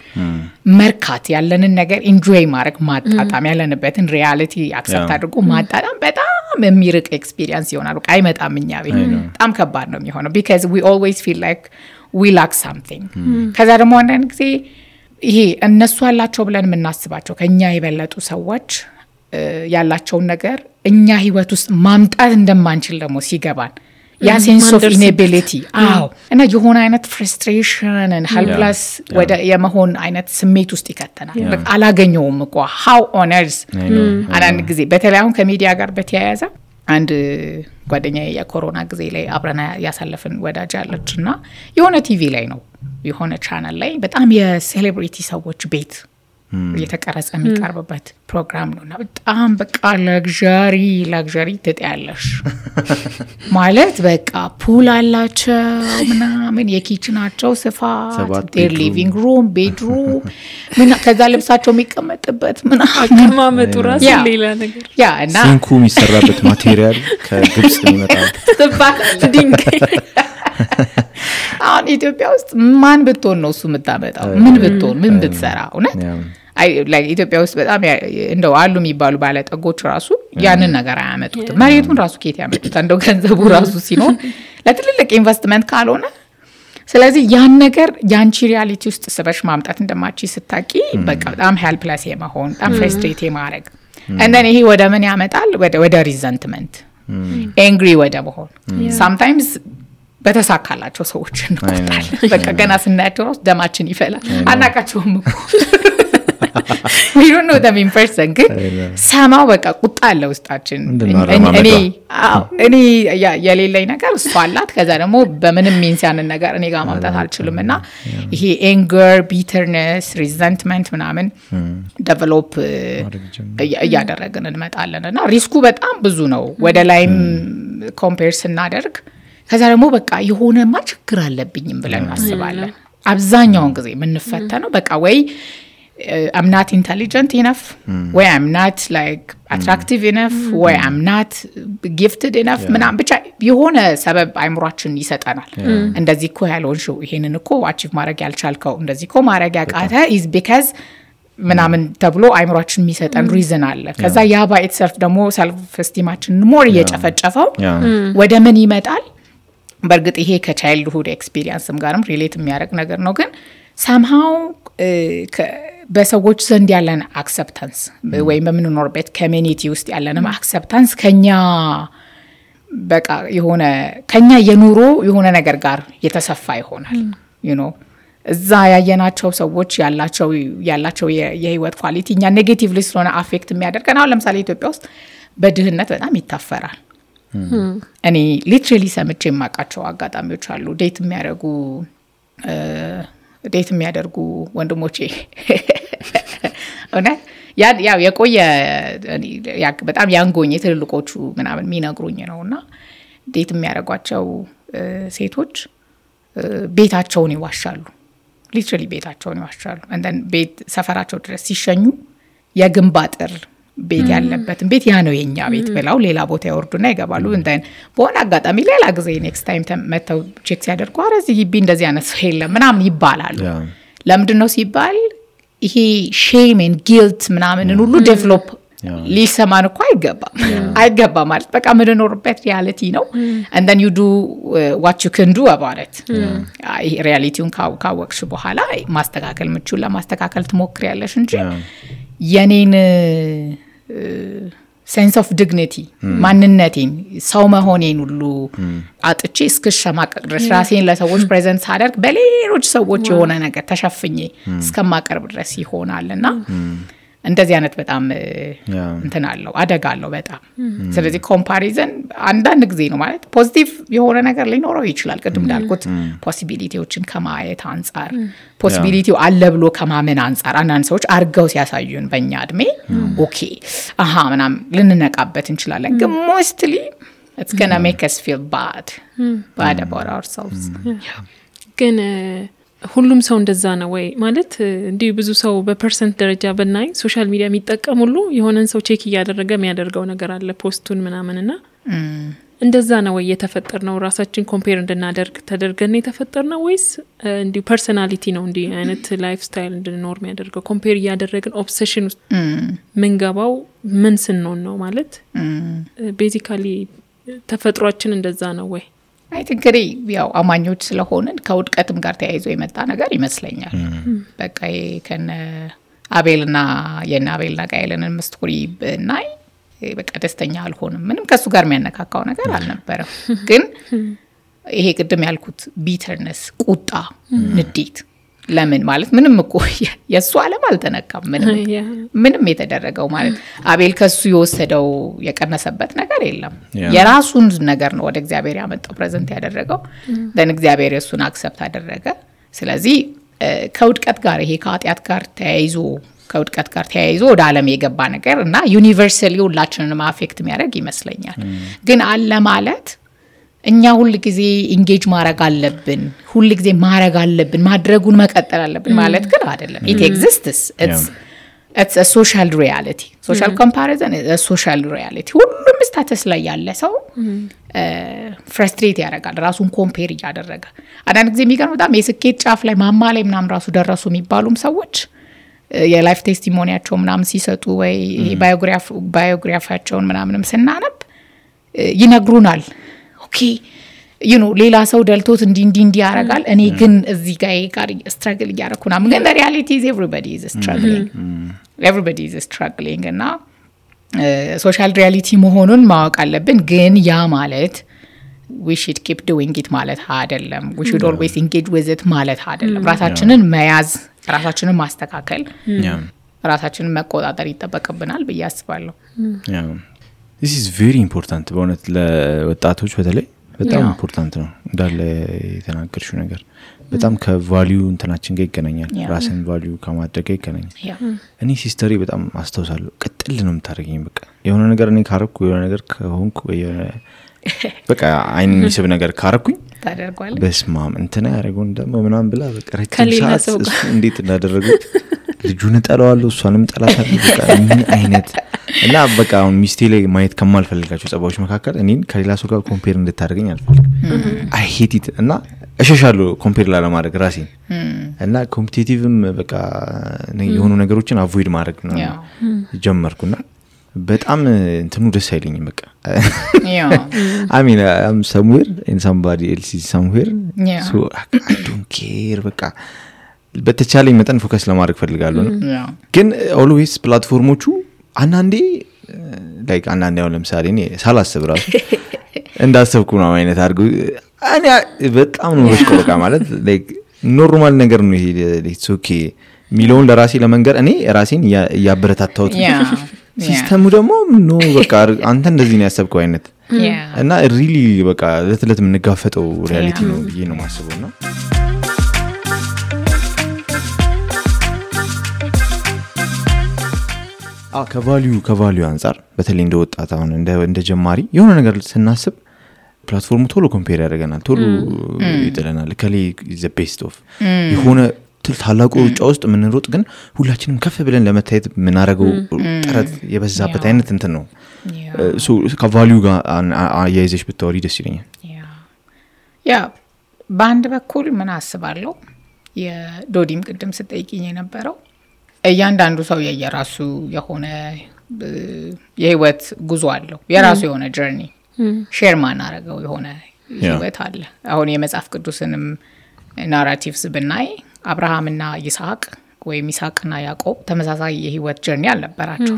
መርካት ያለንን ነገር ኢንጆይ ማድረግ ማጣጣም ያለንበትን ሪያሊቲ አክሰፕት አድርጎ ማጣጣም በጣም የሚርቅ ኤክስፒሪየንስ ይሆናል በቃ አይመጣም እኛ ቤት በጣም ከባድ ነው የሚሆነው because we always feel like we lack something ከዛ ደግሞ አንዳንድ ጊዜ ይሄ እነሱ አላቸው ብለን የምናስባቸው ከኛ የበለጡ ሰዎች ያላቸውን ነገር እኛ ህይወት ውስጥ ማምጣት እንደማንችል ደግሞ ሲገባን ያ ሴንስ ኦፍ ኢኔቢሊቲ እና የሆነ አይነት ፍረስትሬሽን and helpless ወደ የመሆን አይነት ስሜት ውስጥ ይከተናል በቃ አላገኘውም እኮ how on earth አንድ ጊዜ በተለይ አሁን ከሚዲያ ጋር በተያያዘ አንድ ጓደኛዬ የኮሮና ጊዜ ላይ አብረና ያሳለፈን ወዳጅ አለችና የሆነ ቲቪ ላይ ነው የሆነ ቻናል ላይ በጣም የሴሌብሪቲ ሰዎች ቤት የተቀረጸ የሚቀርብበት ፕሮግራም ነውና በጣም በቃ ላግዠሪ ትጠያለሽ ማለት በቃ ፑል አላቸው ምናምን የኪችናቸው ስፋት their living room bedroom ከዛ ልብሳቸው የሚቀመጥበት ምናምን አቀማመጡ ራሱ ሌላ ነገር እና ሲንኩ የሚሰራበት ማቴሪያል ከግብጽ የሚመጣው ድንጋይ አሁን ኢትዮጵያ ውስጥ ማን ብትሆን ነው እሱ የምታመጣው ምን ብትሆን ምን ብትሰራ እውነት like ኢትዮጵያ ውስጥ በጣም እንደው አሉ የሚባሉ ባለጠጎች ራሱ ያንን ነገር አያመጡት መሬቱን ራሱ ከየት ያመጡት እንደው ገንዘቡ ራሱ ሲኖር ለትልልቅ ኢንቨስትመንት ካልሆነ ስለዚህ ያን ነገር ያንቺ ሪያሊቲ ውስጥ ስበሽ ማምጣት እንደማቺ ስታቂ በቃ በጣም ሄልፕለስ የመሆን በጣም ፍረስትሬት የማረግ and then ይሄ ወደ ምን ያመጣል ወደ ሪዘንትመንት angry ወደ መሆን sometimes በተሳካላቸው ሰዎች እንቆጣለን በቃ ገና ስናያቸው ነው ደማችን ይፈላል አናቃቸውም እኮ we don't know them in person ግን ሰማው በቃ ቁጣ አለ ውስጣችን እኔ የሌለኝ ነገር እሷ አላት ከዛ ደግሞ በምንም ሚንሲያንን ነገር እኔ ጋር ማምጣት አልችልምና ይሄ anger bitterness resentment ምናምን develop እያደረግን እንመጣለንና ሪስኩ በጣም ብዙ ነው ወደ ላይም ኮምፔር ስናደርግ ከዛ ደግሞ በቃ የሆነማ ችግር አለብኝም ብለን እናስባለን አብዛኛውን ጊዜ የምንፈተነው በቃ ወይ I'm not intelligent enough ወይ I'm not like attractive enough ወይ I'm not gifted enough ምናምን ብቻ የሆነ ሰበብ አይምሯችን ይሰጠናል እንደዚህ እኮ ያልሆንሽው ይሄንን እኮ አቺቭ ማድረግ ያልቻልከው እንደዚህ እኮ ማድረግ ያቃተ is because ምናምን ተብሎ አይምሯችን የሚሰጠን ሪዝን አለ ከዛ ያ ባይ ኢትሰልፍ ደግሞ ሰልፍ ስቲማችን ሞር እየጨፈጨፈው ወደ ምን ይመጣል በርግጥ ይሄ ከቻይልድሁድ ኤክስፒሪየንስም ጋርም ሪሌት የሚያደርግ ነገር ነው ግን somehow በሰዎች ዘንድ ያለን አክሰፕታንስ ወይም በምንኖርበት ኮሚኒቲ ውስጥ ያለንም አክሰፕታንስ ከኛ በቃ የሆነ ከኛ የኑሮ የሆነ ነገር ጋር የተሰፋ ይሆናል you know እዛ ያየናቸው ሰዎች ያላቸው የህይወት ኳሊቲ እኛ ኔጌቲቭሊ ስለሆነ አፌክት የሚያደርገን አሁን ለምሳሌ ኢትዮጵያ ውስጥ በድህነት በጣም ይታፈራል እኔ ሊትራሊ ሰምቼ የማቃቸው አጋጣሚዎች አሉ ዴት የሚያደርጉ ወንድሞቼ እና ያው የቆየ በጣም ያንጎኝ ትልልቆቹ ምናምን የሚነግሩኝ ነውና ዴት የሚያደርጓቸው ሴቶች ቤታቸውን ይዋሻሉ ሊትራሊ ቤታቸውን ይዋሻሉ and then ቤት ሰፈራቸው ድረስ ሲሸኙ የግንብ አጥር ቤት ያለበትን ቤት ያ ነው የኛ ቤት ብለው ሌላ ቦታ ያወርዱና ይገባሉ and then በሆነ አጋጣሚ ሌላ ጊዜ ኔክስት ታይም መተው ቼክ ሲያደርጉ አረዚህ ግቢ እንደዚህ አይነት ሰው የለም ምናምን ይባላሉ ለምንድነው ሲባል ይሄ ሼም and guilt ምናምን ሁሉ ዴቨሎፕ ሊሰማን እኮ አይገባም ማለት በቃ ምንኖርበት ሪያሊቲ ነው and then you do what you can do about it ሪያሊቲውን ካወቅሽ በኋላ ማስተካከል ምቹን ለማስተካከል ትሞክሪያለሽ እንጂ የኔን sense of dignity ማንነቴን ሰው መሆኔን ሁሉ አጥቼ እስከሸማቀቅ ድረስ ራሴን ለሰዎች ፕሬዘንት ሳደርግ በሌሎች ሰዎች የሆነ ነገር ተሸፍኜ እስከማቀርብ ድረስ ይሆናልና እንደዚህ አይነት በጣም እንትን አለው አደጋ አለው በጣም ስለዚህ ኮምፓሪዝን አንዳንድ ጊዜ ነው ማለት ፖዚቲቭ የሆነ ነገር ሊኖረው ይችላል ቅድም እንዳልኩት ፖሲቢሊቲዎችን ከማየት አንፃር ፖሲቢሊቲው አለ ብሎ ከማመን አንፃር አንዳንድ ሰዎች አርገው ሲያሳዩን በእኛ እድሜ ኦኬ አሃ ምናምን ልንነቃበት እንችላለን ግን ሞስትሊ it's gonna make us feel bad about ourselves ግን ሁሉም ሰው እንደዛ ነው ወይ ማለት እንዲህ ብዙ ሰው በፐርሰንት ደረጃ በናይ ሶሻል ሚዲያ የሚጠቀም ሁሉ የሆነን ሰው ቼክ እያደረገ የሚያደርገው ነገር አለ ፖስቱን ምናምንና እንደዛ ነው ወይ የተፈጠርነው ራሳችን ኮምፔር እንድናደርግ ተደርገን የተፈጠርነው ወይስ እንዲሁ ፐርሰናሊቲ ነው እንዲህ አይነት ላይፍ ስታይል እንድንኖር የሚያደርገው ኮምፔር እያደረግን ኦብሴሽን ውስጥ ምንገባው ምን ስንሆን ነው ማለት ቤዚካሊ ተፈጥሯችን እንደዛ ነው ወይ አይ ቲንክ ያው አማኞች ስለሆነን ከውድቀትም ጋር ተያይዞ የመጣ ነገር ይመስለኛል በቃ ከነ አቤልና የአቤልና ቃየልንን ስቶሪ ብናይ በቃ ደስተኛ አልሆንም ምንም ከሱ ጋር የሚያነካካው ነገር አልነበረም ግን ይሄ ቅድም ያልኩት ቢተርነስ ቁጣ ንዴት ለምን ማለት ምንም እኮ የሱ ዓለም አልተነካም ምንም የተደረገው ማለት አቤል ከሱ የወሰደው የቀነሰበት ነገር የለም የራሱን ነገር ነው ወደ እግዚአብሔር ያመጣው ፕሬዘንት ያደረገው ደን እግዚአብሔር እሱን አክሰፕት አደረገ ስለዚህ ከውድቀት ጋር ይሄ ከኃጢአት ጋር ተያይዞ ወደ ዓለም የገባ ነገር እና ዩኒቨርሳሊ ሁላችንንም አፌክት የሚያደርግ ይመስለኛል ግን አለ ማለት እኛ ሁሉ ጊዜ ኢንጌጅ ማድረግ አለብን ሁሉ ጊዜ ማድረግ አለብን ማድረጉን መቀጠል አለብን ማለት ግን አይደለም it exists it's a social reality social comparison is a social reality ሁሉም ስታተስ ላይ ያለ ሰው ፍራስትሬት ያደርጋል ራሱን ኮምፔር ያደረገ አንዳንድ ጊዜ የሚገርም በጣም የስኬት ጫፍ ላይ ማማ ላይ ምናምን ራሱ ደረሱ የሚባሉም ሰዎች የላይፍ ቴስቲሞኒያቸው ምናምን ሲሰጡ ወይ ባዮግራፊያቸውን ምናምንም ስናነብ ይነግሩናል ኦኬ ሌላ ሰው ደልቶት እንዲ ያረጋል እኔ ግን እዚህ ጋር ስትራግል ያረኩና ግን the reality is everybody is struggling እና ሶሻል ሪያሊቲ መሆኑን ማወቅ አለብን ግን ያ ማለት we should keep doing it ማለት አይደለም we should always engage with it ማለት አይደለም ራሳችንን መያዝ ራሳችንን ማስተካከል ራሳችንን መቆጣጠር ይተበቀብናል በያስባለሁ this is very important በእውነት ለወጣቶች በተለይ በጣም ኢምፖርታንት ነው እንዳለ የተናገርሽው ነገር በጣም ከቫልዩ እንትናችን ጋር ይገናኛል ራስን ቫልዩ ከማድረግ ጋር ይገናኛል እኔ ሲስተሪ በጣም አስተውሳለሁ ቅጥል ነው የምታደርገኝ በቃ የሆነ ነገር እኔ ካረኩ የሆነ ነገር ከሆንኩ በቃ አይን የሚስብ ነገር ካረኩኝ ታደርጓለህ በስማም እንትና ያረጋው እንደማ ምናምን ብላ በቃ ረጅም ሰዓት እንዴት እንዳደረጉት ልጁን ጠላዋለሁ እሷንም ጠላታለሁ በቃ ምን አይነት እና በቃ አሁን ሚስቴ ላይ ማየት ከማልፈልጋቸው ጸባዎች መካከል እኔን ከሌላ ሰው ጋር ኮምፔር እንድታደርገኝ አልፈልግም I hate it እና እሸሻለሁ ኮምፔር ላለማድረግ ራሴን እና ኮምፒቲቲቭም በቃ የሆኑ ነገሮችን አቮይድ ማድረግ ነው ጀመርኩና በጣም እንትኑ ደስ አይለኝም በቃ I mean I'm somewhere and somebody else is somewhere so I don't care በቃ በተቻለኝ መጠን ፎከስ ለማድረግ ፈልጋለሁ ግን always ፕላትፎርሞቹ አንዳንዴ ላይክ አንዳንዴ ያው ለምሳሌ እኔ ሳላስብ ራሱ እንዳሰብኩ ነው አይነት አድርጉ እኔ በጣም ነው በቃ ማለት ላይክ ኖርማል ነገር ነው ይሄ it's okay ሚሊዮን ለራሴ ለመንገር እኔ ራሴን ያበረታታሁት ሲስተሙ ደግሞ ነው በቃ አንተ እንደዚህ ነው ያሰብከው አይነት እና ሪሊ በቃ ለተለት ምንጋፈጠው ሪያሊቲ ነው ብዬ ነው ማስበውና ከቫልዩ አንፃር በተለይ እንደወጣት አሁን እንደ ጀማሪ የሆነ ነገር ስናስብ ፕላትፎርሙ ቶሎ ኮምፔር ያደርገናል ቶሎ ይጥለናል ከሌ is the best of የሆነ ታላቁ ሩጫ ውስጥ ምንሮጥ ግን ሁላችንም ከፍ ብለን ለመታየት ምናረገው ጥረት የበዛበት አይነት እንትን ነው ሶ ከቫልዩ ጋር አያይዘሽ ብታወሪ ደስ ይለኛል ያ ባንድ በኩል ምን አስባለሁ የዶዲም ቅድም ስጠይቂኝ የነበረው እያንዳንዱ ሰው የየራሱ የሆነ የህይወት ጉዞ አለው የራሱ የሆነ ጀርኒ ሼር ማናረገው የሆነ ህይወት አለ አሁን የመጽሐፍ ቅዱስንም ናራቲቭስ ብናይ አብርሃምና ይስሐቅ ወይም ይስሐቅና ያዕቆብ ተመሳሳይ የህይወት ጀርኒ አልነበራቸው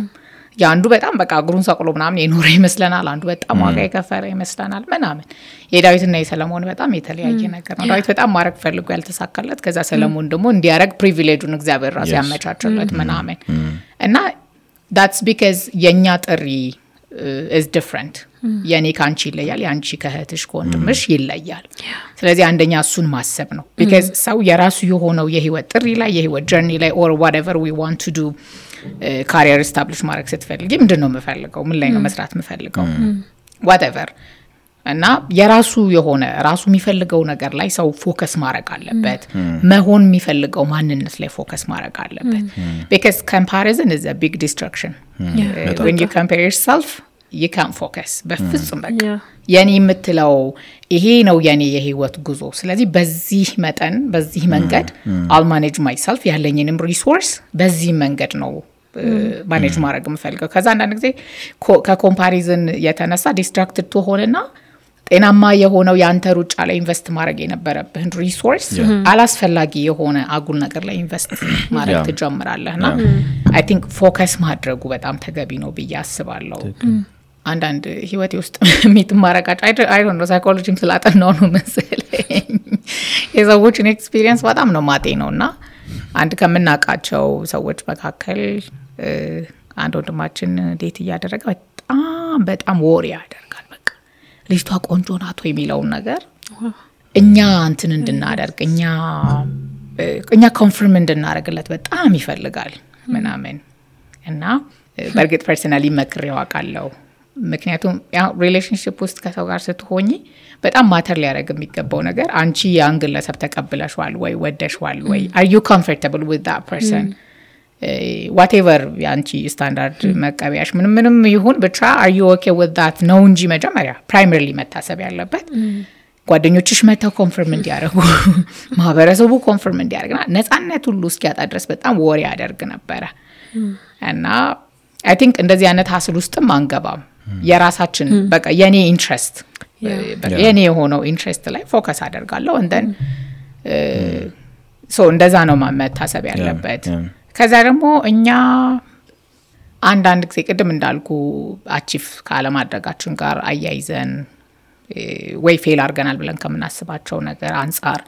ያንዱ በጣም በቃ እግሩን ሰቅሎ ምናምን የኖረ ይመስለናል አንዱ በጣም ዋጋ የከፈለ ይመስለናል ምናምን የዳዊትና የሰለሞን በጣም የተለያየ ነገር ነው ዳዊት በጣም ማረግ ፈልጎ ያልተሳካለት ከዛ ሰለሞን ደግሞ እንዲያረግ ፕሪቪሌጁን እግዚአብሔር ራሱ ያመቻቸለት ምናምን እና that's because የኛ ጥሪ is different የኔ ካንቺ ይለያል ያንቺ ከህትሽ ከወንድምሽ ይለያል ስለዚህ አንደኛ እሱን ማሰብ ነው because ሰው የራሱ የሆነው የህይወት ጥሪ ላይ የህይወት ጀርኒ ላይ or whatever we want to do career establish ማድረግ ስትፈልጊ ምንድነው መፈልገው ምን ላይ ነው መስራት መፈልገው whatever እና የራሱ የሆነ ራሱ የሚፈልገው ነገር ላይ ሰው ፎከስ ማድረግ አለበት መሆን የሚፈልገው ማንነት ላይ ፎከስ ማድረግ አለበት because comparison is a big distraction when you compare yourself you can't focus በፍጹም በቃ የኔ የምትለው ይሄ ነው የኔ የህይወት ጉዞ ስለዚህ በዚህ መጠን በዚህ መንገድ I'll manage myself ያለኝንም ሪሶርስ በዚህ መንገድ ነው ማኔጅ ማድረግ የምፈልገው ከዛ አንዳንድ ጊዜ ከኮምፓሪዝን የተነሳ ዲስትራክትድ ትሆንና ጤናማ የሆነው ያንተ ሩጫ ላይ ኢንቨስት ማድረግ የነበረብህን ሪሶርስ አላስፈላጊ የሆነ አጉል ነገር ላይ ኢንቨስት ማድረግ ትጀምራለህና አይ ቲንክ ፎከስ ማድረጉ በጣም ተገቢ ነው ብዬ አስባለሁ። አንዳንድ ህይወቴ ውስጥ የሚትማረቃጭ አይ ዶንት ኖ ሳይኮሎጂም ስላጠናው ነው መሰለኝ የሰዎችን ኤክስፒሪየንስ በጣም ነው ማጤ ነውና አንድ ከምናቃቸው ሰዎች መካከል አንድ ወንድማችን ዴት እያደረገ በጣም ወሬ ያደርጋል። በቃ ልጅቷ ቆንጆ ናት ወይ የሚለውን ነገር እኛ እንትን እንድናደርግ እኛ ኮንፈርም እንድናደርግለት በጣም ይፈልጋል ምናምን እና በርግጥ ፐርሰናሊ መክሬው አውቃለሁ። ምክንያቱም ያው ሪሌሽንሺፕ ውስጥ ከሰው ጋር ስትሆኚ በጣም ማተር ሊያደርግ የሚገባው ነገር አንቺ ያን ግለሰብ ተቀብለሽዋል ወይ ወደሽዋል ወይ are you comfortable with that person whatever ያንቺ ስታንዳርድ መቀበያሽ ምንም ይሁን ብቻ are you okay with that ነው እንጂ መጀመሪያ primarily መታሰብ ያለበት ጓደኞችሽ መተው ኮንፈርም እንዲያደርጉ ማህበረሰቡ ኮንፈርም እንዲያደርግና ነፃነት ሁሉ እስኪያጣ ድረስ በጣም ወሬ ያደርግ ነበረ እና I think እንደዚህ አይነት ሀስል ውስጥም አንገባም። የራሳችን በቃ የኔ ኢንትረስት የኔ የሆነው ኢንትረስት ላይ ፎከስ አደርጋለሁ and then so እንደዛ ነው መታሰብ ያለበት። ከዛ ደግሞ እኛ አንዳንድ ጊዜ ቅድም እንዳልኩ አቺፍ ካለማድረጋችን ጋር አያይዘን ወይ ፌል አርገናል ብለን ከምናስባቸው ነገር አንፃር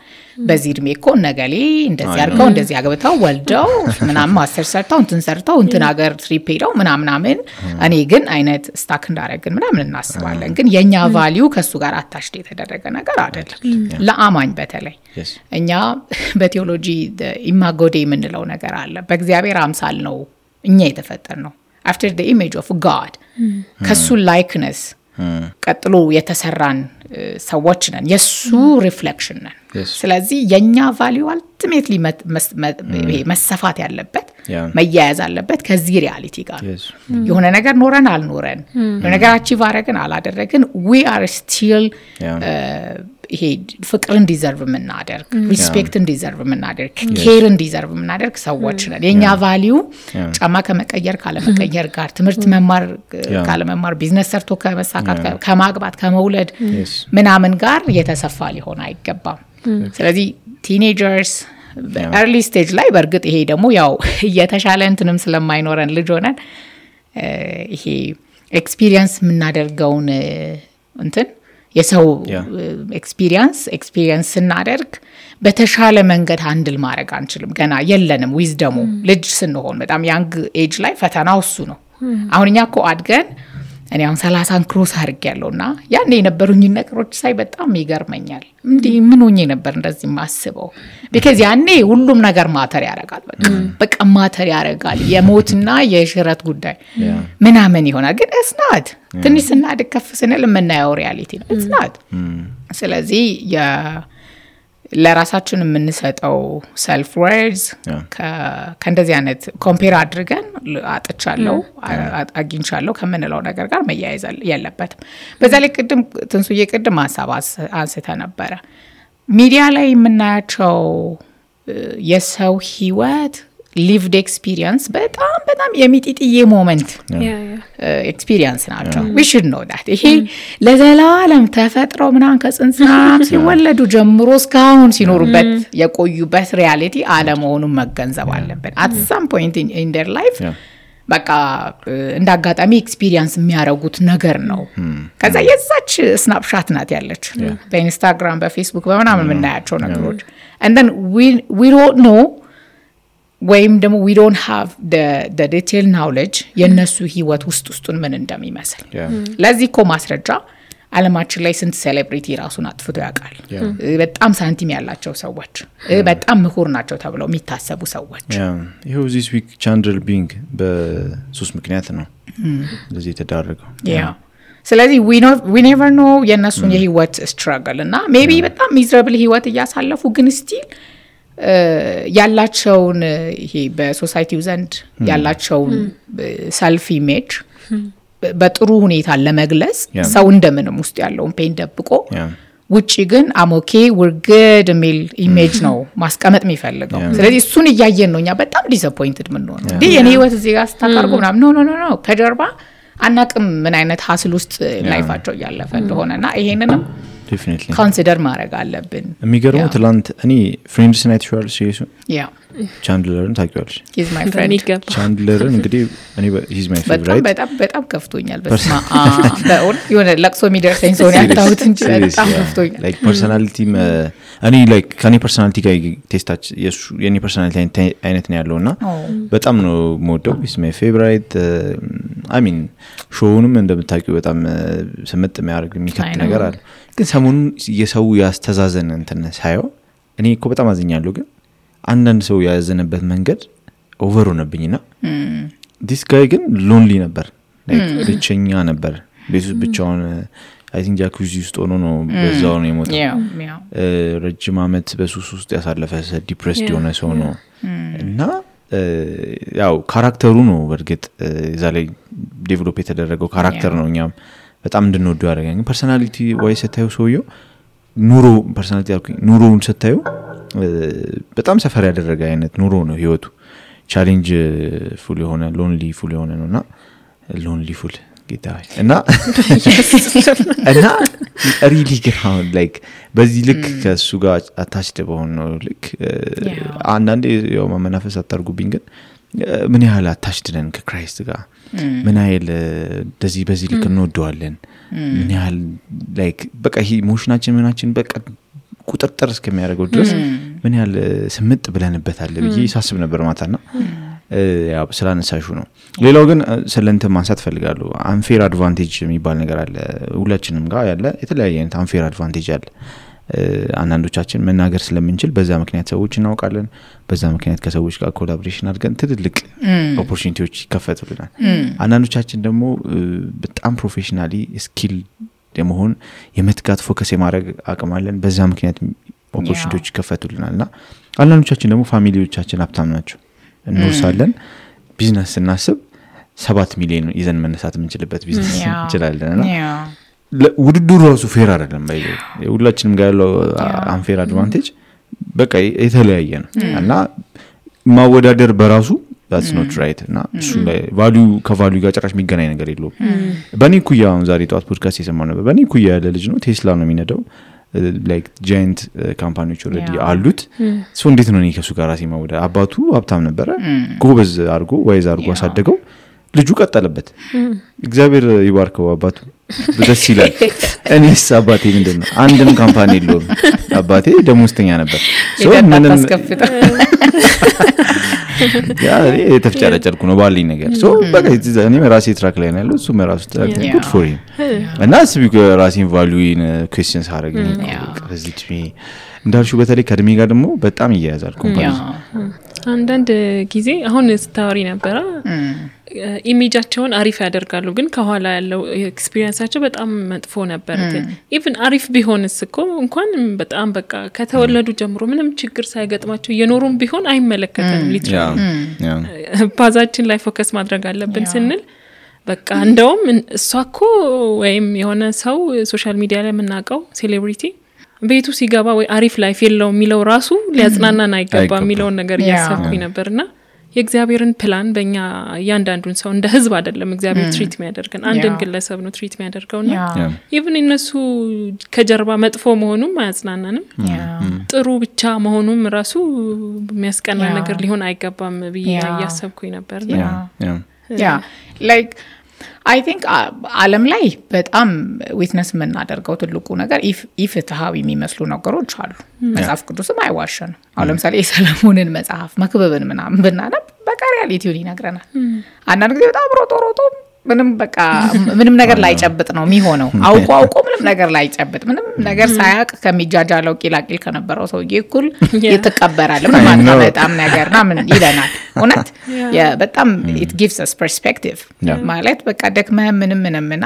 በዚህ እድሜ እኮ ነገሌ እንደዚህ አርገው እንደዚህ አግብተው ወልደው ምናምን ማስተር ሰርተው እንትን ሰርተው እንትን ሀገር ትሪፕ ሄደው ምናምን እኔ ግን አይነት ስታክ እንዳረግን ምናምን እናስባለን። ግን የኛ ቫልዩ ከሱ ጋር አታሽት የተደረገ ነገር አይደለም። ለአማኝ በተለይ እኛ በቴዎሎጂ ኢማጎ ዴይ የምንለው ነገር አለ። በእግዚአብሔር አምሳል ነው እኛ የተፈጠር ነው after the image of God ከሱ likeness ቀጥሎ የተሰራን ሰዎች ነን የሱ ሪፍሌክሽን ነን። ስለዚህ የኛ ቫልዩ አልቲሜትሊ መሰፋት ያለበት መያያዝ አለበት ከዚህ ሪያሊቲ ጋር የሆነ ነገር ኖረን አልኖረን የሆነ ነገር አቺቭ አረግን አላደረግን we are still ይሄ ፍቅርን ዲዘርቭ ምናደርግ ሪስፔክትን ዲዘርቭ ምናደርግ ኬርን ዲዘርቭ ምናደርግ ሰዎች ነን። የኛ ቫልዩ ጫማ ከመቀየር ካለመቀየር ጋር ትምህርት መማር ካለመማር ቢዝነስ ሰርቶ ከመሳካት ከማግባት ከመውለድ ምናምን ጋር የተሰፋ ሊሆን አይገባም። ስለዚህ ቲኔጀርስ early stage ላይ በርግጥ ይሄ ደግሞ ያው የተሻለ እንትንም ስለማይኖረን ልጅ ሆነን ይሄ ኤክስፒሪየንስ ምናደርገውን እንትን የሰው ኤክስፒሪየንስ ስናደርግ በተሻለ መንገድ ሃንድል ማድረግ አንችልም። ገና የለንም ዊዝደሙ ልጅ ስንሆን በጣም ያንግ ኤጅ ላይ ፈተናው እሱ ነው። አሁን እኛ እኮ አድገን እኔ አሁን 30 ክሮስ አድርጌያለሁና ያኔ የነበሩኝ ነገሮች ሳይ በጣም ይገርመኛል። እንዴ ምን ሆኜ ነበር እንደዚህ ማስበው because ያኔ ሁሉም ነገር ማተር ያረጋል። በቃ ማተር ያረጋል የሞትና የሽረት ጉዳይ ምናምን ይሆናል። ግን it's not ትንሽ ስናድግ ከፍ ስንል የምናየው ሪያሊቲ ነው it's not ስለዚህ ለራሳችን የምንሰጠው self words ከእንደዚህ አይነት ኮምፔር አድርገን አጥቻለሁ አግኝቻለሁ ከምንለው ነገር ጋር መያያዝ የለበትም። በዛ ላይ ቅድም ትንሱዬ ቅድም ሐሳብ አንስተ ነበረ ሚዲያ ላይ የምናያቸው የሰው ህይወት lived experience በጣም የሚጢጥዬ ሞመንት experience ናቸው we should know that ይሄ ለዘላለም ተፈጥሮ ምናን ከጽንሳም ሲወለዱ ጀምሮ እስካሁን ሲኖሩበት የቆዩበት ሪያሊቲ አለመሆኑን መገንዘብ አለብን at some point in their life በቃ እንዳጋጣሚ ኤክስፒሪየንስ የሚያረጉት ነገር ነው። ከዛ የዛች ስናፕሻት ናት ያለች በኢንስታግራም በፌስቡክ በመናምን የምናያቸው ነገሮች and then we don't know ወይም ደግሞ we don't have the detail knowledge የነሱ ህይወት ውስጡን ምን እንደሚመስል ለዚህ እኮ ማስረጃ ዓለማችን ላይ ስንት ሴሌብሪቲ ራሱን አጥፍቶ ያውቃል። በጣም ሳንቲም ያላቸው ሰዎች በጣም ምሁር ናቸው ተብለው የሚታሰቡ ሰዎች ይሄው this week Chandler Bing በሱስ ምክንያት ነው እንደዚህ ተዳረገው። ስለዚህ we never know የነሱን የህይወት struggle እና maybe በጣም miserable ህይወት እያሳለፉ ግን still ያላቸውን ይሄ በሶሳይቲው ዘንድ ያላቸውን ሰልፍ ኢሜጅ በጥሩ ሁኔታ ለመግለጽ ሰው እንደምንም ውስጥ ያለውን ፔን ደብቆ ውጪ ግን አሞኬ we're good የሚል ኢሜጅ ነው ማስቀመጥ የሚፈልገው። ስለዚህ እሱን እያየን ነው እኛ በጣም ዲስአፖይንትድ ምን ነው እንዴ የኔ ህይወት እዚህ ጋር ስታቀርቡ ምናምን ኖ ከጀርባ አናቅም ምን አይነት ሀስል ውስጥ ላይፋቸው ያለፈ እንደሆነና ይሄንንም definitely ኮንሲደር ማድረግ አለብን የሚገርመው ትላንት እኔ ፍሬንድስ ናይት ሾል ሲሪየስ ቻንድለርን ታውቂዋለሽ he's my friend ቻንድለርን እንግዲህ እኔ he's my favorite በጣም ከፍቶኛል በስማ በእውነት የሆነ ለቅሶ የሚደርሰኝ ሰው ነው ያጣሁት እንጂ በጣም ከፍቶኛል like personality እኔ like ከኔ personality ጋር ቴስታች የኔ personality አይነት ነው ያለውና በጣም ነው የምወደው he's my favorite I mean ሾውንም እንደምታውቂው በጣም ስምጥ የሚያደርግ የሚከት ነገር አለ ግን ሰሞኑን የሰው ያስተዛዘነ እንትን ሳይው እኔ እኮ በጣም አዝኛለሁ ግን አንዳንድ ሰው ያዘነበት መንገድ ኦቨር ሆነብኝና this guy ግን ሎንሊ ነበር like ብቸኛ ነበር ቤቱ ብቻውን I think ጃኩዚ ውስጥ ሆኖ ነው በዛው ነው የሞተው ረጅም አመት በሱስ ውስጥ ያሳለፈ ዲፕሬስድ የሆነ ሰው ነው እና ያው ካራክተሩ ነው በርግጥ እዛ ላይ ዴቨሎፕ የተደረገው ካራክተር ነው እኛም በጣም እንድንወደው ያደረገኝ ፐርሰናሊቲ ወይ ሰታዩ ሰውየው ኑሮ ፐርሰናሊቲ ኑሮውን ሰታዩ በጣም ሰፈር ያደረገ አይነት ኑሮ ነው ህይወቱ ቻሌንጅ ፉል የሆነ ሎንሊ ፉል የሆነ ነውና ሎንሊ ፉል ጌታዬ እና ሪሊ ግራውንድ ላይክ በዚህ ልክ ከሱ ጋር አታችደ በሆነ ነው ልክ አንዳንዴ ያው ማመናፈስ አታርጉብኝ ግን ምን ያህል አታችደ ነን ከክራይስት ጋር ምን ያህል በዚህ ልክ እንወደዋለን ምን ያህል ላይክ በቃ ይሄ ኢሞሽናችን ምናችን በቃ ቁጥጥር እስከሚያደርገው ድረስ ምን ያህል ስምጥ ብለንበታል ብዬ ሳስብ ነበር ማታና ያው ስላነሳሹ ነው ሌላው ግን ስለንተ ማንሳት ፈልጋለሁ አንፌር አድቫንቴጅ የሚባል ነገር አለ ሁላችንም ጋር ያለ የተለያየ አይነት አንፌር አድቫንቴጅ አለ አንዳንዶቻችን መናገር ስለምንችል በዛ ምክንያት ሰዎች እናውቃለን በዛ ምክንያት ከሰዎች ጋር ኮላቦሬሽን አድርገን ትልልቅ ኦፖርቹኒቲዎች ይከፈቱልናል አንዳንዶቻችን ደግሞ በጣም ፕሮፌሽናሊ ስኪል የመሆን የመትጋት ፎከስ የማድረግ አቅም አለን በዛ ምክንያት ኦፖርቹኒቲዎች ይከፈቱልናልና አንዳንዶቻችን ደግሞ ፋሚሊዎቻችን ሀብታም ናቸው እንወርሳለን ቢዝነስ እናስብ 7 ሚሊዮን ይዘን መነሳት የምንችልበት ቢዝነስ እንችላለንና ውድድሩ ራሱ ፌር አይደለም ባይዘው ሁላችንም ጋር ያለው አንፌር አድቫንቴጅ በቃ የተለያየ ነው እና ማወዳደር በራሱ that's not right እና እሱ ላይ ከቫልዩ ጋር ጭራሽ የሚገናኝ ነገር የለውም በኔ ኩያ አሁን ዛሬ ጧት ፖድካስት የሰማነው ነበር በኔ ኩያ ያለ ልጅ ነው ቴስላ ነው የሚነዳው like giant ካምፓኒዎች ኦሬዲ አሉት ሶ እንዴት ነው ከሱ ጋር ራሴ ማወዳደር አባቱ ሀብታም ነበረ ጎበዝ አርጎ ዋይዝ አርጎ አሳደገው ልጁ ቀጠለበት እግዚአብሔር ይባርከው አባቱ ደስ ይላል እኔስ አባቴ ምንድነው አንድም ካምፓኒ የለውም አባቴ ደሞዝተኛ ነበር ሶ ምንም ያ የተፍጨረጨርኩ ነው ባልኝ ነገር ሶ በቃ እኔ ራሴ ትራክ ላይ ነው ያለው እሱ ራሱ ትራክ good for him እና ስቢክ ራሴን ቫልዩን ኩዌስቸንስ አረጋኝ ከዚህ እንዳልሽው በተለይ ከድሜ ጋር ደግሞ በጣም ይያያዛል ኮምፓኒዝ አንዳንድ ጊዜ አሁን ስታወሪ ነበር ኢሜጃቸውን አሪፍ ያደርጋሉ ግን ከኋላ ያለው ኤክስፒሪየንሳቸው በጣም መጥፎ ነበር ኢቭን አሪፍ ቢሆንስ እኮ እንኳን በጣም በቃ ከተወለዱ ጀምሮ ምንም ችግር ሳይገጥማቸው የኖሩም ቢሆን አይመለከተንም ሊትራሊ ፓዛችን ላይ ፎከስ ማድረግ አለብን ስንል በቃ እንደውም እሷኮ ወይም የሆነ ሰው ሶሻል ሚዲያ ላይ የምናውቀው ሴሌብሪቲ ቤቱ ሲገባ ወይ አሪፍ ላይፍ የለው የሚለው ራሱ ሊያጽናናን አይገባ የሚለው ነገር ያሰብኩኝ ነበርና የእግዚአብሔርን ፕላን በእኛ ያንዳንዱን ሰው እንደ ህዝብ አይደለም እግዚአብሔር ትሪት የሚያደርገን አንድን ግለሰብ ነው ትሪት የሚያደርገውና ኢቭን እነሱ ከጀርባ መጥፎ መሆኑም አያጽናናንም ጥሩ ብቻ መሆኑም ራሱ የሚያስቀና ነገር ሊሆን አይገባም ብዬ ያሰብኩኝ ነበርና like I think ዓለም ላይ በጣም ዊትነስ የምናደርገው ትልቁ ነገር ኢፍትሃዊ የሚመስሉ ነገሮች አሉ መጽሐፍ ቅዱስም አይዋሸንም አሁን ለምሳሌ የሰለሞንን መጽሐፍ መክብብን ምናምን ብናነብ በቃ ሪያሊቲውን ይነግረናል አንዳንድ ጊዜ በጣም ሮጦ ምንም በቃ ምንም ነገር ላይ ጨብጥ ነው የሚሆነው አውቆ ምንም ነገር ላይ ጨብጥ ምንም ነገር ሳያቅ ከሚጃጃለው ቂላቂል ከነበረው ሰውዬ እኩል ይተቀበራል ማለት በጣም ነገርና ምን ይለናል እውነት በጣም it gives us perspective ማለት በቃ ደክመህ ምንምና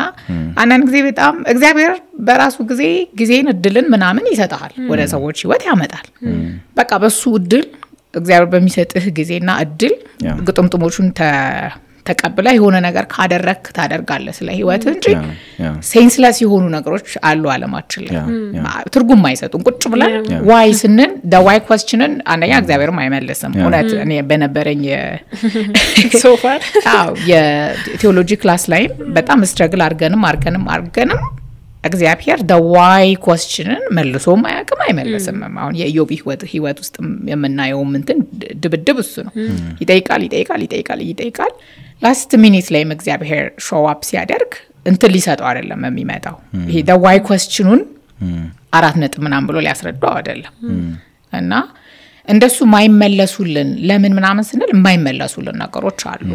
አንዳንድ ጊዜ በጣም እግዚአብሔር በራሱ ጊዜን እድልን ምናምን ይሰጣል ወደ ሰዎች ህይወት ያመጣል በቃ በሱ እድል እግዚአብሔር በሚሰጥህ ጊዜና እድል ግጥምጥሞቹን ተቀብለ የሆነ ነገር ካደረክ ታደርጋለህ ስለ ህይወት እንጂ ሴንስለስ የሆኑ ነገሮች አሉ ዓለማችን ላይ ትርጉም አይሰጡም ቁጭ ብለን why ስንን the why questionን አንደኛ እግዚአብሔርም አይመልስም እውነት እኔ በነበረኝ so far የቴዎሎጂ ክላስ ላይ በጣም ስትራግል አርገንም እግዚአብሔር the why questionን መልሶም አያውቅም አይመልስም አሁን የኢዮብ ህይወት ውስጥ የምናየው እንትን ድብድብ እሱ ነው ይጠይቃል last minute ላይ እግዚአብሔር show up ሲያደርግ እንትን ሊሰጠው አይደለም የሚመጣው ይሄ the why questionን 4 ነጥብ ምናምን ብሎ ሊያስረዳው አይደለም እና እንደሱ ማይመለሱልን ለምን ምናምን ስንል የማይመለሱልን ነገሮች አሉ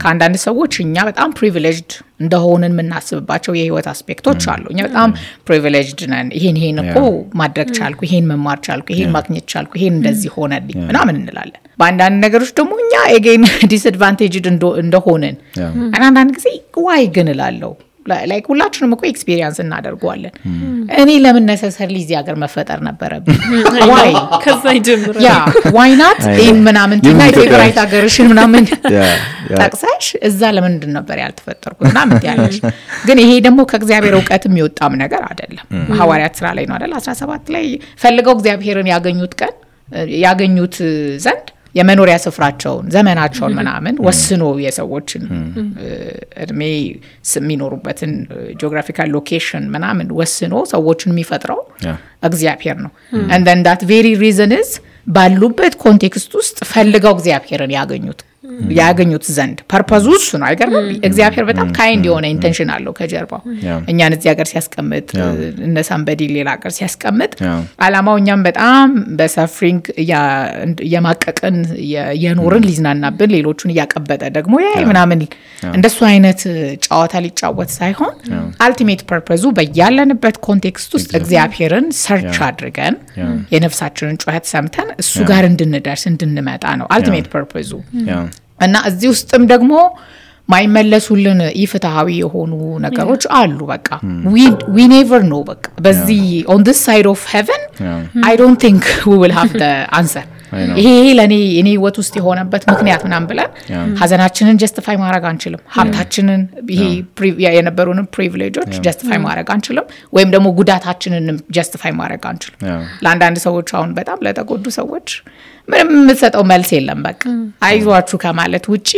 ከአንዳንድ ሰዎች እኛ በጣም ፕሪቪሌጅድ እንደሆነን የምናስብባቸው የህይወት አስፔክቶች አሉ እኛ በጣም ፕሪቪሌጅድ ነን ይሄን እኮ ማድረግ ቻልኩ ይሄን መማር ቻልኩ ይሄን ማግኘት ቻልኩ ይሄን እንደዚህ ሆነልኝ ምናምን እንላለን በአንዳንድ ነገሮች ደግሞ እኛ again disadvantaged እንደሆነን አንዳንድ ጊዜ why ግን እላለሁ like ሁላችንም እኮ ኤክስፒሪየንስ እናደርጋለን እኔ ለምን necessarily እዚህ ሀገር መፈጠር ነበረብኝ why ከዛ ይጀምራል why not in ምናምን ትናይ ፌቨራይት ሀገርሽን ምናምን ታክሳሽ እዛ ለምን ነበር ያልተፈጠርኩት ምናምን ያለሽ ግን ይሄ ደግሞ ከእግዚአብሔር ዕውቀትም ይወጣም ነገር አይደለም ሐዋርያት ሥራ ላይ ነው አይደል 17 ላይ ፈልገው እግዚአብሔርን ያገኙት ዘንድ የመኖሪያ ስፍራቸውን ዘመናቸውን ምናምን ወስኖ የሰዎችን እድሜ የሚኖሩበትን ጂኦግራፊካል ሎኬሽን ምናምን ወስኖ ሰዎችን የሚፈጥረው እግዚአብሔር ነው and then that very reason is ባሉበት ኮንቴክስት ውስጥ ፈልገው እግዚአብሔርን ያገኙት ዘንድ ፐርፐዙ እሱ ነው አይገርም እግዚአብሔር በጣም ካይንድ የሆነ ኢንቴንሽን አለው ከጀርባው እኛን እዚህ ሀገር ሲያስቀምጥ እነ ሳምበዲ ሌላ ሀገር ሲያስቀምጥ አላማው እኛም በጣም በሰፍሪንግ የማቀቀን የኖርን ሊዝናናብን ሌሎቹን ያቀበጠ ደግሞ ምናምን እንደሱ አይነት ጨዋታ ሊጫወት ሳይሆን አልቲሜት ፐርፐዙ በያለንበት ኮንቴክስት ውስጥ እግዚአብሔርን ሰርች አድርገን የነፍሳችንን ጩኸት ሰምተን እሱ ጋር እንድንደርስ እንድንመጣ ነው አልቲሜት ፐርፐዙ እና እዚህ ውስጥም ደግሞ ማይመለሱልን ኢፍትሃዊ የሆኑ ነገሮች አሉ በቃ we never know በቃ በዚህ on this side of heaven I don't think we will have the answer ይሄ ለኔ እኔ ህይወት ውስጥ የሆነበት ምክንያት ምናምን ብለን ሀዘናችንን ጀስቲፋይ ማድረግ አንችልም ሀብታችንን ይሄ የነበሩን ፕሪቪሌጆች ጀስቲፋይ ማድረግ አንችልም ወይም ደግሞ ጉዳታችንን ጀስቲፋይ ማድረግ አንችልም ለአንዳንድ ሰዎች አሁን በጣም ለተጎዱ ሰዎች ምንም የምትሰጠው መልስ የለም በቃ አይዟችሁ ከማለት ውጪ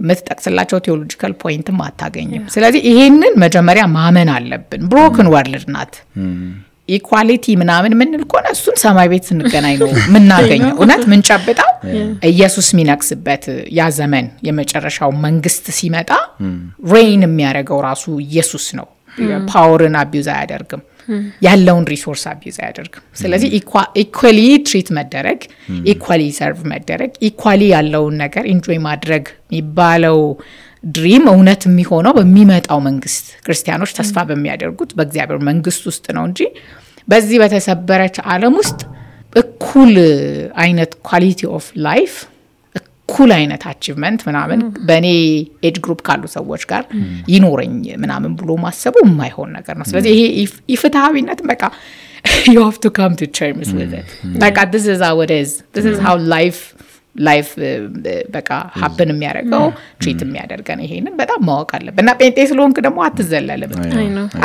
የምትጠቅስላቸው ቴዎሎጂካል ፖይንትም አታገኝም ስለዚህ ይሄንን መጀመሪያ ማመን አለብን ብሮክን ወርልድ ናት ኢኳሊቲ ምናምን ምን ልኮና እሱን ሰማይ ቤት ስንገናኝ ነው ምናገኘው እውነት ምን ጨብጣው ኢየሱስ ሚነክስበት ያ ዘመን የመጨረሻው መንግስት ሲመጣ ሬን የሚያደርገው ራሱ ኢየሱስ ነው ፓወርን አቢዩዝ አያደርግም ያለውን ሪሶርስ አቢዩዝ አያደርግም ስለዚህ ኢኳሊ ትሪት መደረግ ኢኳሊ ሰርቭ መደረግ ኢኳሊ ያለውን ነገር ኢንጆይ ማድረግ የሚባለው ድሪም እውነት የሚሆነው በሚመጣው መንግስት ክርስቲያኖች ተስፋ በሚያደርጉት በእግዚአብሔር መንግስት ውስጥ ነው እንጂ በዚህ በተሰበረች ዓለም ውስጥ እኩል አይነት ኳሊቲ ኦፍ ላይፍ እኩል አይነት አቺቭመንት ምናምን በኔ ኤጅ ግሩፕ ካሉ ሰዎች ጋር ይኖረኝ ምናምን ብሎ ማሰቡ የማይሆን ነገር ነው ስለዚህ ይሄ ኢፍትሃዊነት በቃ you have to come to terms with it like this is how it is this is how life በቃ happen የሚያደርገው ትሪት የሚያደርገን ይሄንን በጣም ማወቅ አለብን እና ጴንጤ ስለሆንክ ደግሞ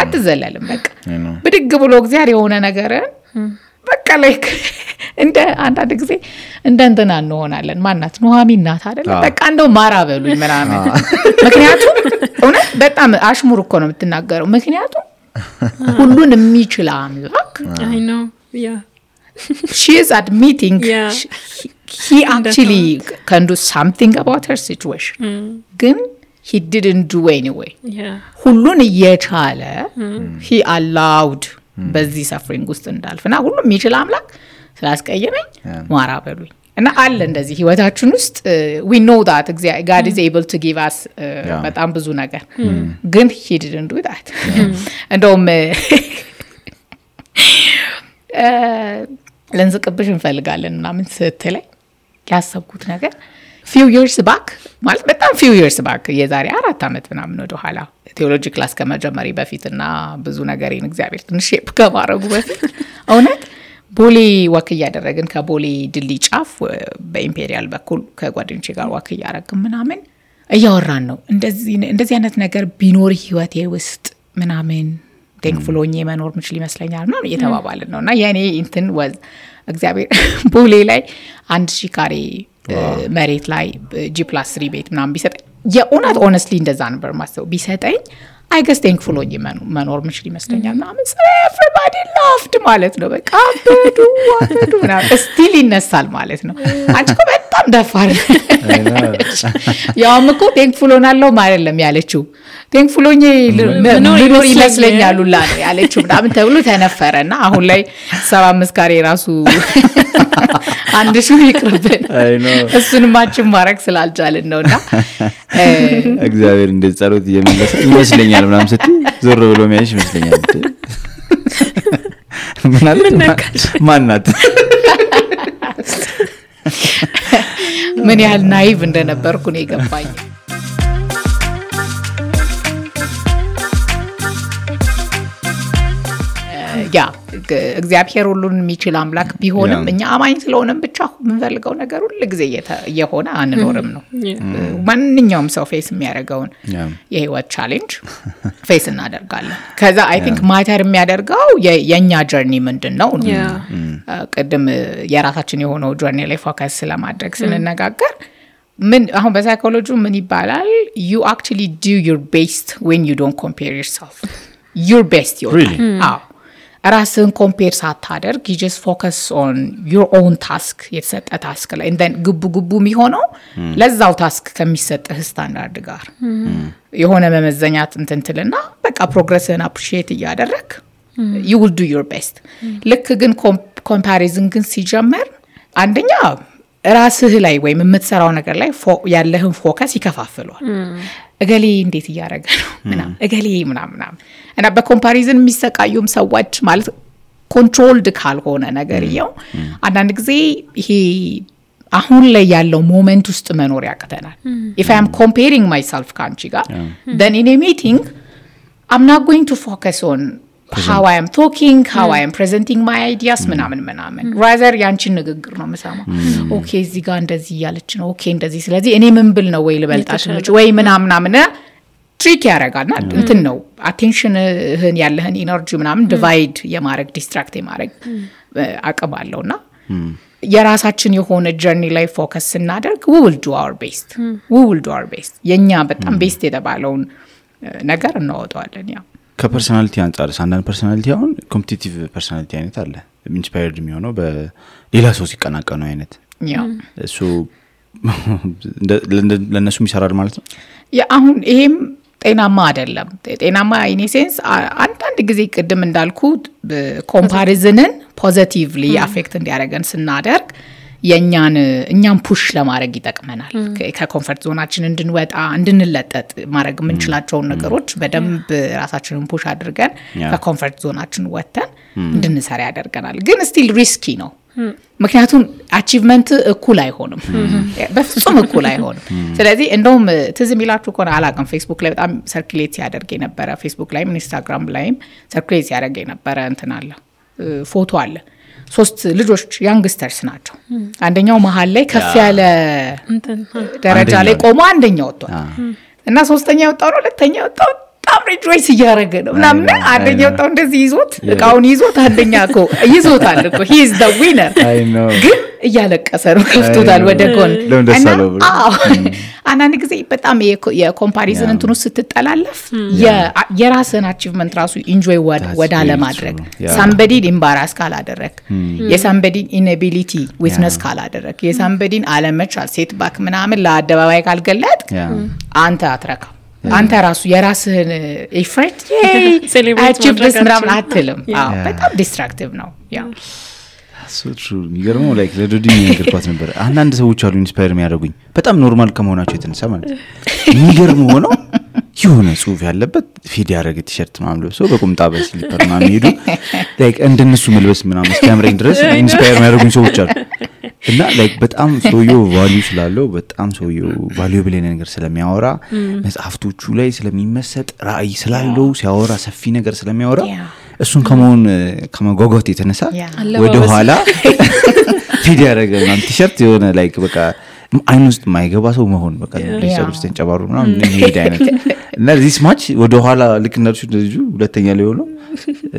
አትዘለልም በቃ ብድግ ብሎ እግዚአብሔር የሆነ ነገር በቃ ላይክ እንደ አንዳንድ ጊዜ እንደንተና እንሆናለን ማናት ኑሃሚን ናት አይደል በቃ እንደው ማራ በሉኝ ምናምን ምክንያቱም እውነት በጣም አሽሙር እኮ ነው የምትናገረው ምክንያቱም ሁሉን የሚችል አምላክ I know yeah she is admitting he actually can do something about her situation ግን he didn't do anyway ሁሉን እየቻለ he allowed በዚህ ሰፍሪንግ ውስጥ እንዳልፍና ሁሉም የሚችል አምላክ ስላስቀየመኝ ማራ በሉኝ እና አለ እንደዚህ ህይወታችን ውስጥ we know that God is able to give us በጣም ብዙ ነገር ግን he didn't do that እንደውም ለንዝቅብሽ እንፈልጋለን ምናምን ስትለኝ ያሰብኩት ነገር few years back ማለት በጣም few years back የዛሬ 4 አመት ምናምን ወደ ኋላ ቴዎሎጂ ክላስ ከመጀመሪ በፊትና ብዙ ነገርን እግዚአብሔር ትንሽ ከማረጉ በፊት እውነት ቦሌ ወክ ያደረግን ከቦሌ ድልድይ ጫፍ በኢምፔሪያል በኩል ከጓደኞቼ ጋር ወክ ያደረግን ምናምን እያወራን ነው እንደዚህ አይነት ነገር ቢኖር ህይወቴ ውስጥ ምናምን ቴንክፉል ሆኜ መኖር ምችል ይመስለኛል እና እየተባባልን ነውና የኔ እንትን ወዝ እግዚአብሔር ቦሌ ላይ 1000 ካሬ መሬት ላይ G+3 ቤት ምናምን ቢሰጠኝ የእውነት ሆነስትሊ እንደዛ ነበር ማሰው ቢሰጠኝ I guess thankful ሆኜ መኖር ምችል ይመስለኛል ምናምን everybody laughed ማለት ነው በቃ አበዱ ምናምን ስቲል ይነሳል ማለት ነው አንቺ እኮ በጣም ደፋር ያውም እኮ thankful ሆናለሁ ማለት ነው ያለችው thankful ሆኜ ልኖር ይመስለኛል ሁላ ያለችው ምናምን ተብሎ ተነፈረና አሁን ላይ 75 ካሬ ራሱ አንድ ሺህ ይቅርብን እሱንም ማችን ማረክ ስላልቻልን ነውና እግዚአብሔር እንደ ጸሎት እየመለሰ ይመስለኛል ምናምን ስትይ ዞር ብሎ የሚያይሽ ይመስለኛል ማናት ምን ያህል ናይቭ እንደነበርኩ ነው የገባኝ ያ እግዚአብሔር ሁሉን የሚችል አምላክ ቢሆንም እኛ አማኝ ስለሆነም ብቻ ምንፈልገው ነገር ሁሉ ጊዜ የሆነ አንኖርም ነው ማንኛውም ሰው ፌስ የሚያደርገውን የህይወት ቻሌንጅ ፌስ እናደርጋለን ከዛ አይ ቲንክ ማተር የሚያደርገው የኛ ጀርኒ ምንድነው ቀደም የራሳችን የሆነው ጀርኒ ላይ ፎከስ ስለማድረግ ስንነጋገር ምን አሁን በሳይኮሎጂ ምን ይባላል you actually do your best when you don't compare yourself your best ራስን ኮምፔር ሳታደርግ you just focus on your own task የተሰጠ ታስክ ላይ and then ግቡ የሚሆነው ለዛው ታስክ ከሚሰጥህ ስታንዳርድ ጋር የሆነ መመዘኛት እንትንትልና በቃ ፕሮግረስን አፕሪሺየት እያደረክ you will do your best ልክ ግን ኮምፓሪዝን ግን ሲጀመር አንደኛ ራስህ ላይ ወይ የምትሰራው ነገር ላይ ያለህን ፎከስ ይከፋፍሏል እገሌ እንዴት ያያረገ ነው ምናም እገሌ ምናም እና በኮምፓሪዝን የሚሰቃዩም ሰዎች ማለት ኮንትሮልድ ካልሆነ ነገር ይው አንዳንድ ጊዜ ይሄ አሁን ላይ ያለው ሞመንት ውስጥ መኖር ያቀተናል if I am comparing myself ካንቺ ጋር then in a meeting I'm not going to focus on how I am talking how I am presenting my ideas ምናምን rather ያንቺን ንግግር ነው መሰማው ኦኬ እዚህ ጋር እንደዚህ ያለች ነው ኦኬ እንደዚህ ስለዚህ እኔ ምን ብል ነው ወይ ልበልጣሽ ወይ ምናምን ትሪክ ያረጋልና እንትን ነው አቴንሽንህን ያለህን ኢነርጂ ምናምን ዲቫይድ የማረግ ዲስትራክት የማረግ አቅም አለውና የራሳችን የሆነ ጀርኒ ላይ ፎከስ ስናደርግ we will do our best የኛ በጣም ቤስት የተባለውን ነገር እናወጣዋለን ያ ከፐርሰናሊቲ አንፃር ሳንዳን ፐርሰናሊቲ አሁን ኮምፒቲቲቭ ፐርሰናሊቲ አይነት አለ ኢንስፓየርድ የሚሆነው በሌላ ሰው ሲቀናቀኑ አይነት ያ እሱ ለነሱ ይሰራል ማለት ነው ያ አሁን ይሄም ጤናማ አይደለም ጤናማ ኢን ሴንስ አንዳንድ ጊዜ ቀደም እንዳልኩት ኮምፓሪዝንን ፖዚቲቭሊ አፌክት እንዲያደርገን ስናደርግ እኛን ፑሽ ለማድረግ ይጠቅመናል ከኮምፎርት ዞናችን እንድንወጣ እንድንለጠጥ ማድረግ ምንችላቸው ነገሮች በደንብ ራሳችንን ፑሽ አድርገን ከኮምፎርት ዞናችን ወጥተን እንድንሰራ ያደርገናል ግን ስቲል ሪስኪ ነው ምክንያቱም አቺቭመንት እኩል አይሆንም በፍጹም እኩል አይሆንም ስለዚህ እንደውም ትዝም ይላችሁ ኮና አላቀም ፌስቡክ ላይ በጣም ሰርኩሌት ያደርግ የነበረ ፌስቡክ ላይም ኢንስታግራም ላይም ሰርኩሌት ያደርግ የነበረ እንትን አለ ፎቶ አለ 3 ልጆች ያንግስተርስ ናቸው አንደኛው መሃል ላይ ከፍ ያለ ደረጃ ላይ ቆሞ አንደኛው ወጥቷል እና ሶስተኛው ወጣው ነው ሁለተኛው ወጣው በጣም ሪጆይስ እያደረገ ነው ምናምን አንደኛው ወጣው እንደዚህ ይዞት እቃውን ይዞት አንደኛው ይዞታል እኮ he is the winner ግን እያለቀሰ ነው ከፍቶታል ወደ ጎን አናን ጊዜ በጣም የኮምፓሪዝን እንትኑ ስትጠላለፍ የራስን አቺቭመንት ራሱ ኢንጆይ ወደ አለማድረግ somebody embarrass ካላደረክ የsomebody inability witness ካላደረክ የsomebody አለመቻል ሴት ባክ ምናምን ለአደባባይ ካልገለጥ አንተ አትረካ አንተ ራሱ የራስህን ኤፈርት አቺቭመንት ምናምን አትልም በጣም ዲስትራክቲቭ ነው ያ so true የሚገርመው ላይክ ለዶዲ ነገርኳት ነበር አንዳንድ ሰዎች አሉ ኢንስፓየር የሚያደርጉኝ በጣም ኖርማል ከመሆናቸው የተነሳ ማለት የሚገርመው ነው የሆነ ጽሁፍ ያለበት ፊድ ያደረገ ቲሸርት ምናምን ለብሰው በቁምጣ በስሊፐር ምናምን ሄዱ ላይክ እንደነሱ መልበስ ምናምን እስከምረኝ ድረስ ኢንስፓየር የሚያደርጉኝ ሰዎች አሉ እና ላይክ በጣም ሰውየው ቫልዩ ስላለው በጣም ሰውየው ቫልዩብል ነገር ስለሚያወራ መጽሐፍቶቹ ላይ ስለሚመሰጥ ራእይ ስላለው ሲያወራ ሰፊ ነገር ስለሚያወራ እሱን ከመጓጓት የተነሳ ወደ ኋላ ፊድ ያደረገ ምናምን ቲሸርት የሆነ ላይክ በቃ አይን ውስጥ ማይገባ ሰው መሆን በቃ ለሰው ውስጥ ተንጨባሩ ምናምን የሚሄድ አይነት እና this much ወደ ኋላ ልክ እንደሱ ልጁ ሁለተኛ ላይ ሆኖ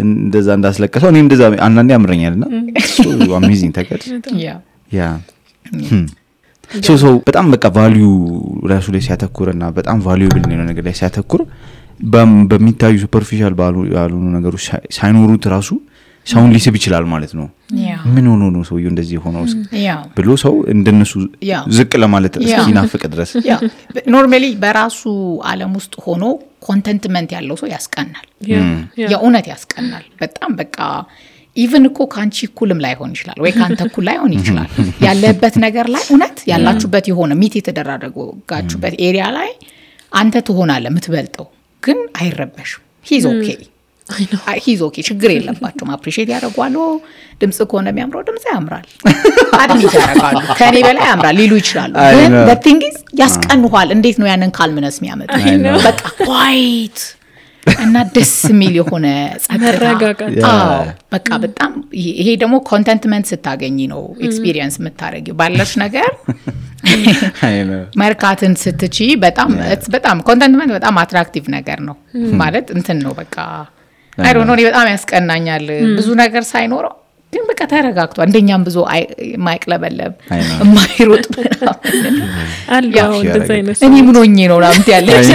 እንደዛ እንዳስለቀሰው እኔ እንደዛ አንዳንዴ ያምረኛልና so amazing ተቀድ ያ so በጣም በቃ ቫልዩ ራሱ ላይ ሲያተኩርና በጣም ቫልዩብል ነው ነገር ላይ ሲያተኩር በሚታዩ ሱፐርፊሻል ባሉ ነገሮች ሳይኖሩት ራሱ ሰውን ሊስብ ይችላል ማለት ነው ምን ሆኖ ነው ሰው እንደዚህ ሆኖ ብሎ ሰው እንደነሱ ዝቅ ለማለት እስኪናፍቅ ድረስ ኖርማሊ በራሱ ዓለም ውስጥ ሆኖ ኮንተንትመንት ያለው ሰው ያስቀናል የእውነት ያስቀናል በጣም በቃ ኢቭን እኮ ካንቺ ኩልም ላይ ሆን ይችላል ወይ ካንተ ኩል ላይ ሆን ይችላል ያለበት ነገር ላይ እውነት ያላችሁበት የሆነ ሚት የተደረጋችሁበት ኤሪያ ላይ አንተ ትሆናለህ የምትበልጠው ግን አይረበሽም he's okay ችግር የለባቸውም አፕሪሺየት ያደርጓሉ ድምጽ ከሆነ የሚያምረው ድምጽ ያምራል አድሚት ያደርጋሉ ከኔ በላይ ያምራል ሊሉ ይችላሉ ግን the thing is ያስቀንኋል እንዴት ነው ያንን ካልምነስ የሚያመጣ በቃ quiet እና ደስ የሚል የሆነ ጸጥታ በቃ በጣም ይሄ ደግሞ ኮንተንትመንት ስታገኝ ነው ኤክስፒሪየንስ የምታረጊው ባለሽ ነገር ማርካትን ስትቺ በጣም ኮንተንትመንት በጣም አትራክቲቭ ነገር ነው ማለት እንትን ነው በቃ አይ ዶንት ኖ በጣም ያስቀናኛል ብዙ ነገር ሳይኖረው ግን በቃ ተረጋግቷ እንደኛም ብዙ ማይቅለበለብ ማይሮጥ አልያው እንደዛ አይነት እኔ ምን ሆኜ ነው ላምት ያለች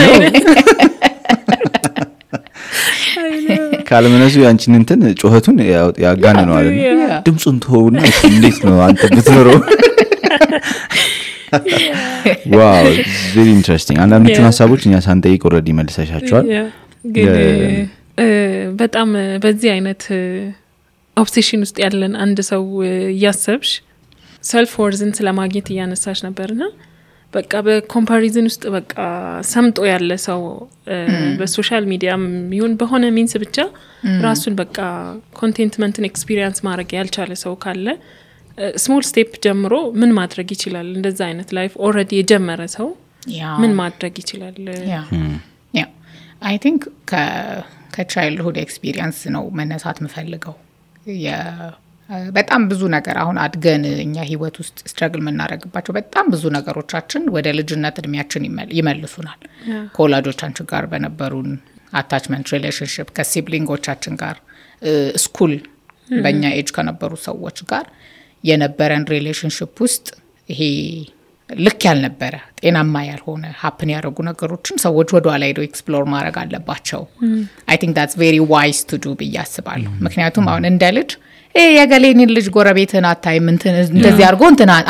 ካልመነሱ ያንቺን እንትን ጮህቱን ያጋነነው አይደል ድምጹን ተውና እንዴት ነው አንተ ብትኖረው ዋው very interesting አንዳንዶቹን ሐሳቦች እኛ ሳንጠይቅ ኦሬዲ መልሰሻቸዋል ግን በጣም በዚህ አይነት ኦብሴሽን ውስጥ ያለን አንድ ሰው ያሰብሽ ሰልፍ ወርዝን ስለማግኘት ያነሳሽ ነበርና በቃ በኮምፓሪዝን ውስጥ በቃ ሰምጦ ያለ ሰው በሶሻል ሚዲያም ይሁን በሆነ ሚንስ ብቻ ራሱን በቃ ኮንቴንትመንትን ኤክስፒሪየንስ ማድረግ ያልቻለ ሰው ካለ ስሞል ስቴፕ ጀምሮ ምን ማድረግ ይችላል እንደዛ አይነት ላይፍ ኦሬዲ የጀመረ ሰው ምን ማድረግ ይችላል I think ከቻይልድሁድ ኤክስፒሪየንስ ነው መነሳት መፈልገው በጣም ብዙ ነገር አሁን አድገን እኛ ህይወት ውስጥ ስትራግል መናረግባቸው በጣም ብዙ ነገሮቻችን ወደ ልጅነት እድሜያችን ይመልሱናል ኮላጆቻችን ጋር በነበሩን አታችመንት ሪሌሽንሺፕ ከሲብሊንጎቻችን ጋር ስኩል በእኛ ኤጅ ከነበሩ ሰዎች ጋር የነበረን ሪሌሽንሺፕ ውስጥ ይሄ ልክ ያልነበረ ጤናማ ያልሆነ ሀፕን ያደረጉ ነገሮችን ሰዎች ወደ ኋላ ሄደው ኤክስፕሎር ማድረግ አለባቸው I think that's very wise to do ብያስባለሁ ምክንያቱም አሁን እንደ ልጅ የገሌኒን ልጅ ጎረቤትን አታይም እንደዚህ አድርጎ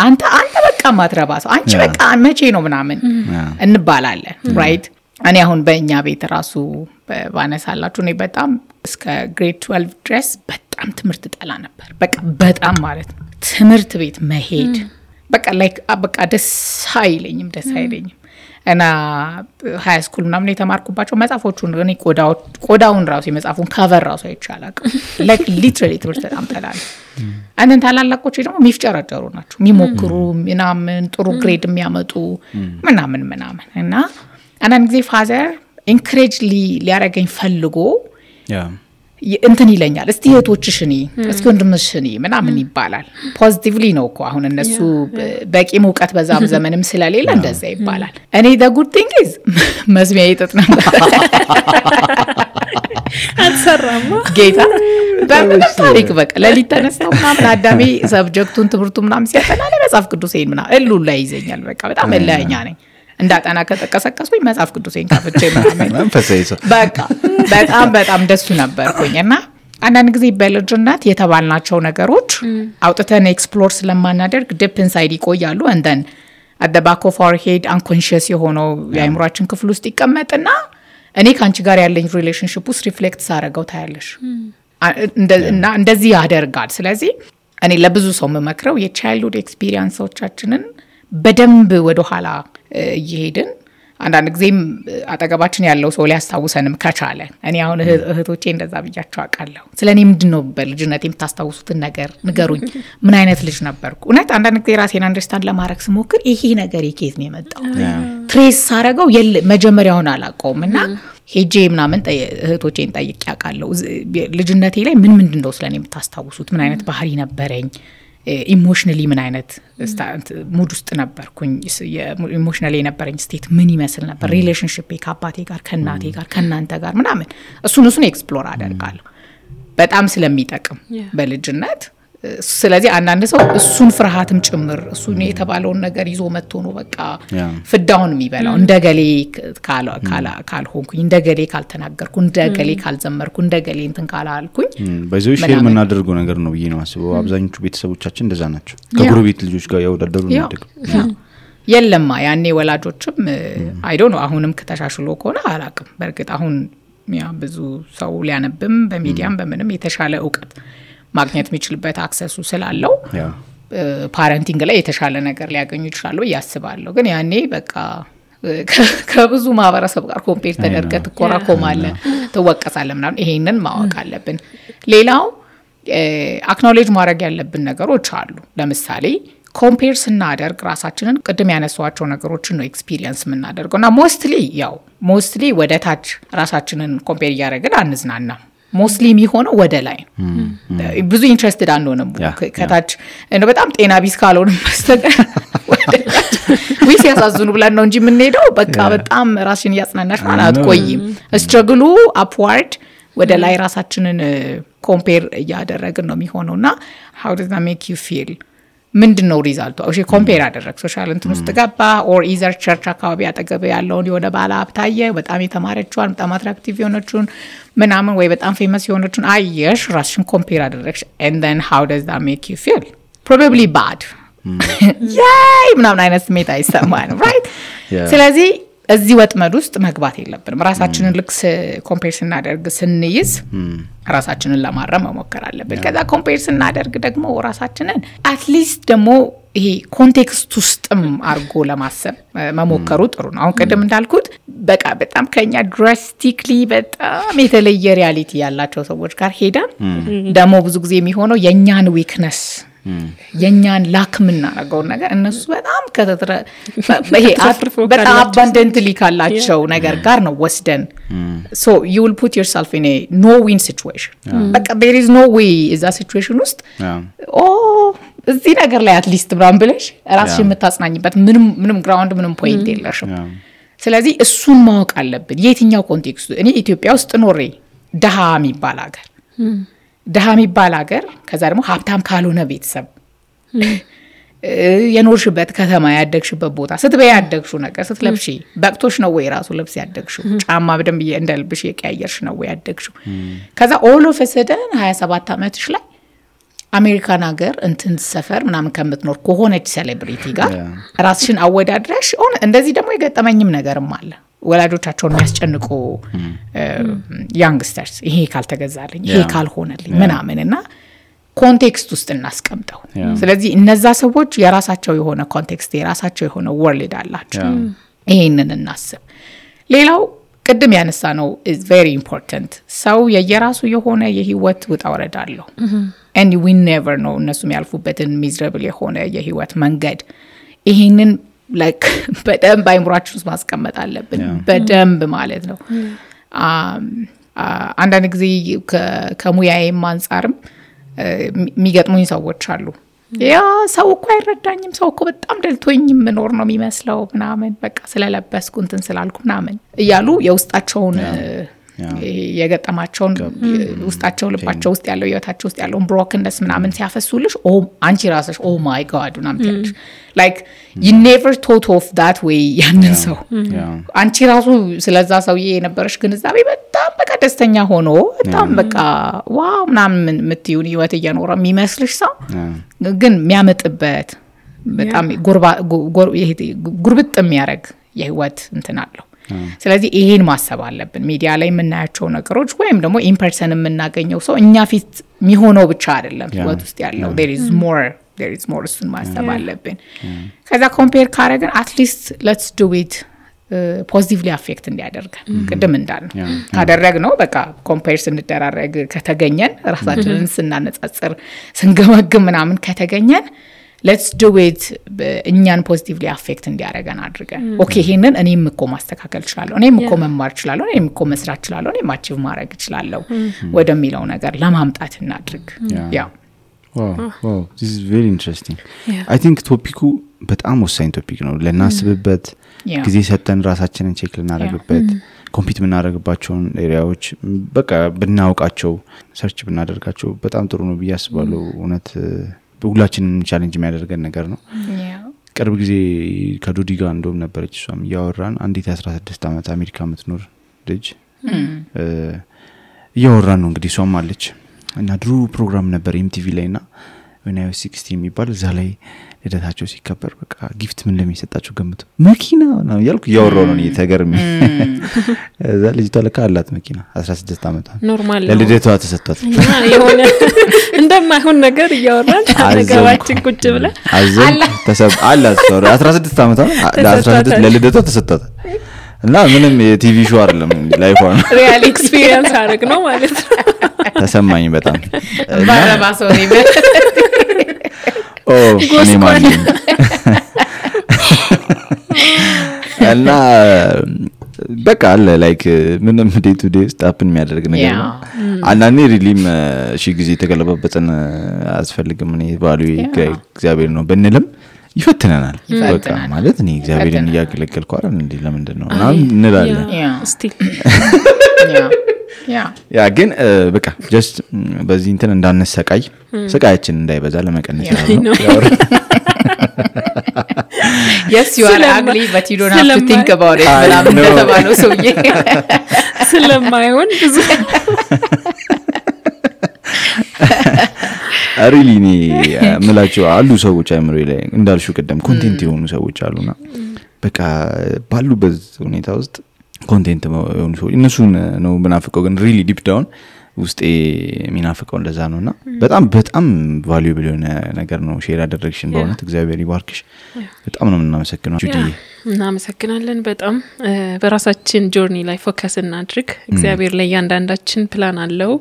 አንተ በቃ ማትረባ ሰው አንቺ በቃ መቼ ነው ምናምን እንባላለን ራይት እኔ አሁን በእኛ ቤት ራሱ ባነሳላችሁ እኔ በጣም እስከ ግሬድ 12 ድረስ በጣም ትምህርት ጠላ ነበር በጣም ማለት ነው ትምህርት ቤት መሄድ በቃ ደስ አይለኝም እና ሃይ ስኩል ምናምን የተማርኩባቸው መጽሐፎቹን እኔ ቆዳውን ራሱ የመጽሐፉን ከቨር ራሱ አይቻላል ሊትራሊ ትምህርት በጣም ጠላለ አንተን ታላላቆች ደግሞ ሚፍጨረጨሩ ናቸው የሚሞክሩ ምናምን ጥሩ ግሬድ የሚያመጡ ምናምን እና አንዳንድ ጊዜ ፋዘር ኢንከሬጅ ሊያረገኝ ፈልጎ እንትን ይለኛል እስቲ እህቶችሽኒ እስኪ ወንድምሽኒ ምናምን ይባላል ፖዚቲቭሊ ነው እኮ አሁን እነሱ በቂ ሙቀት በዛም ዘመንም ስለሌለ እንደዛ ይባላል እኔ the good thing is መስሚያ ይጥጥ ነበር አልሰራማ ጌታ በምን ታሪክ በቃ ለሊት ተነስተው ምናምን አዳሜ ሰብጀክቱን ትምህርቱ ምናምን ሲያጠና ለመጽሐፍ ቅዱሴን ምናምን እሉ ላይ ይዘኛል በቃ በጣም እለኛ ነኝ እንዳጠና ከተቀሰቀስኩኝ መጽሐፍ ቅዱሴን ካፍቼ ምናምን በቃ በጣም ደስ ነበርኩኝና አንዳንድ ጊዜ በልጅነት የተባልናቸው ነገሮች አውጥተን ኤክስፕሎር ስለማናደርግ ዲፕ ኢንሳይድ ይቆያሉ and then at the back of our head unconscious የሆነው የአይምሮአችን ክፍል ውስጥ ይቀመጥና እኔ ካንቺ ጋር ያለኝ ሪሌሽንሺፕ ውስጥ ሪፍሌክት ሳረጋው ታያለሽ እንደዚህ ያደርጋል ስለዚህ እኔ ለብዙ ሰው መመክረው የቻይልድሁድ ኤክስፒሪየንሶቻችንን በደንብ ወደ ኋላ እየሄድን አንዳንድ ጊዜም አጠገባችን ያለው ሰው ሊያስታውሰንም ከቻለ እኔ አሁን እህቶቼ እንደዛ ብያቸው አውቃለሁ ስለኔ ምንድነው በልጅነቴ የምታስታውሱትን ነገር ንገሩኝ ምን አይነት ልጅ ነበርኩ እውነት አንዳንድ ጊዜ ራሴን አንደርስታንድ ለማድረግ ስሞክር ይሄ ነገር የኬት ነው የመጣው ትሬስ ሳረጋው መጀመሪያውን አላውቀውምና ሄጄ ምናምን እህቶቼን ጠይቄ አውቃለሁ ልጅነቴ ላይ ምንድነው ስለኔ የምታስታውሱት ምን አይነት ባህሪ ነበረኝ ኢሞሽናሊ ምን አይነት ሙድ ውስጥ ነበርኩኝ ኢሞሽናሊ የነበረኝ ስቴት ምን ይመስል ነበር ሪሌሽንሺፕ ከአባቴ ጋር ከእናቴ ጋር ከእናንተ ጋር ምናምን እሱን ኤክስፕሎር አደርጋለሁ በጣም ስለሚጠቅም በልጅነት ስለዚህ አንዳንድ ሰው እሱን ፍርሃትም ጭምር እሱን የተባለውን ነገር ይዞ መጥቶ ነው በቃ ፍዳውን የሚበላው እንደገሌ ካልሆንኩኝ እንደገሌ ካልተናገርኩ እንደገሌ ካልዘመርኩ እንደገሌ እንትን ካላልኩኝ በዚህ ሼር የምናደርገው ነገር ነው ብዬ ነው አስበው አብዛኞቹ ቤተሰቦቻችን እንደዛ ናቸው ከጎረቤት ልጆች ጋር ያወዳደሩ ነው የለማ ያኔ ወላጆችም አይ ዶንት ኖ አሁንም ከተሻሽሎ ከሆነ አላቅም በርግጥ አሁን ያ ብዙ ሰው ሊያነብም በሚዲያም በምንም የተሻለ ዕውቀት ማግኘት የሚችልበት አክሰሱ ስላለው ፓረንቲንግ ላይ የተሻለ ነገር ሊያገኙ ይችላሉ ያስባለሁ ግን ያኔ በቃ ከብዙ ማህበረሰብ ጋር ኮምፔር ተደርገህ ትኮራኮማለህ ትወቀሳለህ ምናምን ይሄንን ማወቅ አለብን ሌላው አክኖሌጅ ማድረግ ያለብን ነገሮች አሉ ለምሳሌ ኮምፔር ስናደርግ ራሳችንን ቅድም ያነሷቸው ነገሮችን ነው ኤክስፒሪየንስ የምናደርገውና ሞስትሊ ወደ ታች ራሳችንን ኮምፔር እያደረግን አንዝናናም ሞስትሊ የሚሆነው ወደ ላይ ብዙ ኢንትረስትድ አንሆንም ከታች በጣም ጤና ቢስ ካልሆንም በስተቀር ዊስ ያሳዝኑ ብለን ነው እንጂ የምንሄደው በቃ በጣም ራስሽን ያጽናናሽ ማለት አትቆይም ስትራግሉ አፕዋርድ ወደ ላይ ራሳችንን ኮምፔር እያደረግን ነው የሚሆነውና how does that make you feel ምንድነው ሪዛልቱ እሺ ኮምፔር አደረግ ሶሻል እንትን ውስጥ ገባ ኦር ኢዘር ቸርች አካባቢ አጠገብ ያለውን የሆነ ባለ ሀብታየ በጣም የተማረችዋን በጣም አትራክቲቭ የሆነችውን ምናምን ወይ በጣም ፌመስ የሆነችውን አየሽ ራስሽን ኮምፔር አደረግሽ and then how does that make you feel probably bad yay ምናምን አይነት ስሜት አይሰማንም right ስለዚህ እዚህ ወጥመድ ውስጥ መግባት የለብንም ራሳችንን ልክስ ኮምፔር ስናደርግ ስንይዝ ራሳችንን ለማረም መሞከር አለብን ከዛ ኮምፔር ስናደርግ ደግሞ ራሳችንን አትሊስት ደግሞ ይሄ ኮንቴክስት ውስጥም አርጎ ለማሰብ መሞከሩ ጥሩ ነው አሁን ቀደም እንዳልኩት በቃ በጣም ከኛ ድራስቲክሊ በጣም የተለየ ሪያሊቲ ያላቸው ሰዎች ጋር ሄደን ደግሞ ብዙ ጊዜ የሚሆነው የኛን ዊክነስ የኛን ላክምና ነገው ነገር እነሱ በጣም ከተተረ በጣም abundantly ካላቸው ነገር ጋር ነው ወስደን so you will put yourself in a no win situation but there is no way is that situation ውስጥ እዚህ ነገር ላይ at least ብራም ብለሽ ራስሽ የምታጽናኝበት ምንም ግራውንድ ምንም ፖይንት የለሽም ስለዚህ እሱን ማወቅ አለብን የትኛው ኮንቴክስቱ እኔ ኢትዮጵያ ውስጥ ኖሬ ደሃ የሚባል ሀገር ከዛ ደግሞ ሀብታም ካልሆነ ቤተሰብ የኖርሽበት ከተማ ያደግሽበት ቦታ ስትበይ ያደግሽው ነገር ስትለብሺ በቅቶሽ ነው ወይ ራሱ ልብስ ያደግሽው ጫማ በደንብ እንደልብሽ የቀያየርሽ ነው ወይ ያደግሽው ከዛ all of a sudden 27 አመትሽ ላይ አሜሪካን ሀገር እንትን ሰፈር ምናምን ከምትኖር ከሆነች ሴሌብሪቲ ጋር ራስሽን አወዳድረሽ እንደዚህ ደግሞ የገጠመኝም ነገርም አለ ወላጆቻቸውን የሚያስጨንቁ ያንግስተርስ ይሄ ካልተገዛልኝ ይሄ ካልሆነልኝ ምናምንና ኮንቴክስት ውስጥ እናስቀምጠው ስለዚህ እነዛ ሰዎች የራሳቸው የሆነ ኮንቴክስት የራሳቸው የሆነ ወርልድ አላቸው ይሄንን እናስብ ሌላው ቅድም ያነሳ ነው is very important ሰው የየራሱ የሆነ የህይወት ውጣ ወረድ አለው and we never know እነሱም ያልፉበትን miserable የሆነ የህይወት መንገድ ይሄንን like በደንብ አይምሯችን ውስጥ ማስቀመጥ አለብን በደንብ ማለት ነው አንዳንድ ጊዜ ከሙያዬም አንፃርም የሚገጥሙኝ ሰዎች አሉ ያ ሰው እኮ አይረዳኝም ሰው እኮ በጣም ደልቶኝ ምኖር ነው የሚመስለው ምናምን በቃ ስለለበስኩ እንትን ስላልኩ ምናምን እያሉ የውስጣቸውን የገጠማቸውን ውስጣቸው ልባቸው ውስጥ ያለው ህይወታቸው ውስጥ ያለው ብሮከንነስ ምናምን ሲያፈሱልሽ አንቺ ራስሽ my god ምናምን ትያለሽ like you never thought of that way ያንን ሰው አንቺ ራሱ ስለዛ ሰውዬ የነበረሽ ግንዛቤ በጣም በቃ ደስተኛ ሆኖ በጣም በቃ ዋው ምናምን ምትዩን ህይወት እየኖረ የሚመስልሽ ሰው ግን የሚያመጥበት በጣም ጉርብጥ የሚያረግ የህይወት እንትን አለው ስለዚህ ይሄን ማሰብ አለብን ሚዲያ ላይ የምናያቸው ነገሮች ወይም ደግሞ ኢን ፐርሰን የምናገኘው ሰው እኛ ፊት የሚሆነው ብቻ አይደለም ህይወት ውስጥ ያለው there is more እሱን ማሰብ አለብን ከዛ ኮምፔር ካረግን at least let's do it positively affect እንዲያደርገን ቅድም እንዳልነው ካደረግነው በቃ ኮምፔር ስንደራረግ ከተገኘን ራሳችንን ስናነጻጽር ስንገመግም ምናምን ከተገኘን let's do it እኛን positively affect እንዲያደርገን አድርገን ኦኬ ይሄንን እኔም እኮ ማስተካከል እችላለሁ እኔም እኮ መማር እችላለሁ እኔም እኮ መስራት እችላለሁ እኔም አቺቭ ማድረግ እችላለሁ ወደሚለው ነገር ለማምጣት እናድርግ ያ wow this is very interesting. I think ቶፒኩ በጣም ወሳኝ ቶፒክ ነው ለናስብበት ጊዜ ሰጠን ራሳችንን ቼክ ልናደርግበት ኮምፒት ምናደርግባቸውን ኤሪያዎች በቃ ብናውቃቸው ሰርች ብናደርጋቸው በጣም ጥሩ ነው ብዬ አስባለሁ እውነት ሁላችንም ቻሌንጅ የሚያደርገን ነገር ነው ቅርብ ጊዜ ከዶዲ ጋር እንደውም ነበረች እሷም ያወራን አንዲት 16 ዓመት አሜሪካ የምትኖር ልጅ ያወራን ነው እንግዲህ እሷም አለች እና ድሮ ፕሮግራም ነበር MTV ላይና when I was 16 የሚባል እዛ ላይ ልደታቸው ሲከበር በቃ ጊፍት ምን እንደሚሰጣቸው ገምቱ መኪና ነው ያልኩ ያወራው ነው ተገርሚ እዛ ልጅ ተለካ አላት መኪና 16 ዓመት ኖርማል ለልደቷ ተሰጣት የሆነ እንደማይሆን ነገር ያወራን ነገራችን ቁጭ ብለ አላት 16 ዓመት ለ16 ለልደቷ ተሰጣት እና ምንም የቲቪ ሾው አይደለም ላይፍ ነው ሪያል ኤክስፒሪየንስ አረግ ነው ማለት ነው ተሰማኝ በጣም ባረባሶ ነው እኔ ማለት እና በቃ አለ ላይክ ምንም ዴይ ቱ ዴይ ስታፕን የሚያደርግ ነገር ነው አንዳንዴ ሪሊም እሺ ጊዜ ተገለበበተን አስፈልግም እኔ ባሉ እግዚአብሔር ነው በእንልም ይፈትነናል በቃ ማለት እኔ እግዚአብሔርን ያገለገልኩ አይደል እንዴ ለምንድን ነው እንላለን ስቲል ያ ግን በቃ ጀስት በዚህ እንትን እንዳንሰቃይ ስቃያችን እንዳይበዛ ለመቀነስ ነው Yes you are ugly but you don't have to think about it በላም ተባለው ሰውዬ ስለማይሆን ብዙ አሪሊኒ ምላቸው አሉ ሰዎች አይምሮ ላይ እንዳልሹ ቀደም ኮንቴንት የሆኑ ሰዎች አሉና በቃ ባሉበት ሁኔታ ውስጥ ኮንቴንት የሆኑ ሰዎች እነሱን ነው ምናፍቀው ግን ሪሊ ዲፕ ዳውን ውስጥ ሚናፍቀው እንደዛ ነውና በጣም ቫልዩብል የሆነ ነገር ነው ሼር ያደረግሽን በእውነት እግዚአብሔር ይባርክሽ በጣም ነው እናመሰግናለን ጁዲ እናመሰግናለን በጣም በራሳችን ጆርኒ ላይ ፎከስ እናድርግ እግዚአብሔር ላይ ያንዳንዳችን ፕላን አለው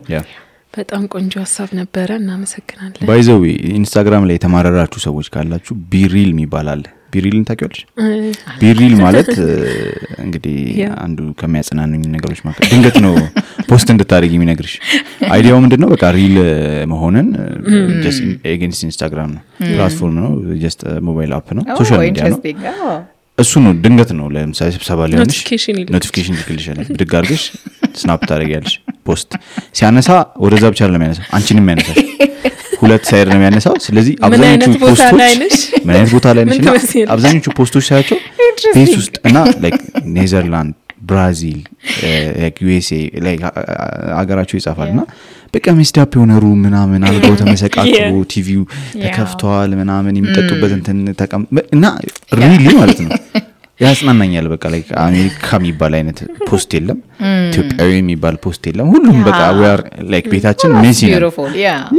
በጣም ቆንጆ ሐሳብ ነበር እናመሰግናለን ባይዘው ኢንስታግራም ላይ ተማረራችሁ ሰዎች ካላችሁ ቢሪል የሚባላል ቢሪልን ታውቂዋለሽ ቢሪል ማለት እንግዲህ አንዱ ከሚያጸናኑኝ ነገሮች ማለት ድንገት ነው ፖስት እንድታደርጊ የሚነግርሽ አይዲያው ምንድነው በቃ ሪል መሆንን just against ኢንስታግራም ነው ፕላትፎርም ነው just ሞባይል አፕ ነው ሶሻል ሚዲያ ነው እሱ ነው ድንገት ነው ለምሳሌ ስብሰባ ላይ ሆነሽ ኖቲፊኬሽን ይልክልሻል ብድግ አድርገሽ ስናፕ ታደርጊያለሽ ፖስት ሲያነሳ ወደዛ ብቻ አይደለም ያነሳው አንቺንም ያነሳሽ ሁለት ሳይድ ነው ያነሳው ስለዚህ አብዛኞቹ ፖስቶች ምን አይነት ቦታ ላይ ነሽ አብዛኞቹ ፖስቶች ሳያቸው ፔስ ውስጥ እና ላይክ ኔዘርላንድ ብራዚል ላይክ USA ላይክ አገራቸው ይጻፋልና በቃ ሚስታፕ የሆነሩ ምናምን አልገው ተመሰቃቅሩ ቲቪው ተከፍቷል ምናምን የሚጠጡበት እንትን ተቀም እና ሪሊ ማለት ነው ያስናናኛል በቃ ላይክ አሜሪካ የሚባል አይነት ፖስት የለም ኢትዮጵያዊ የሚባል ፖስት የለም ሁሉም በቃ we are like ቤታችን ሜሲ ነው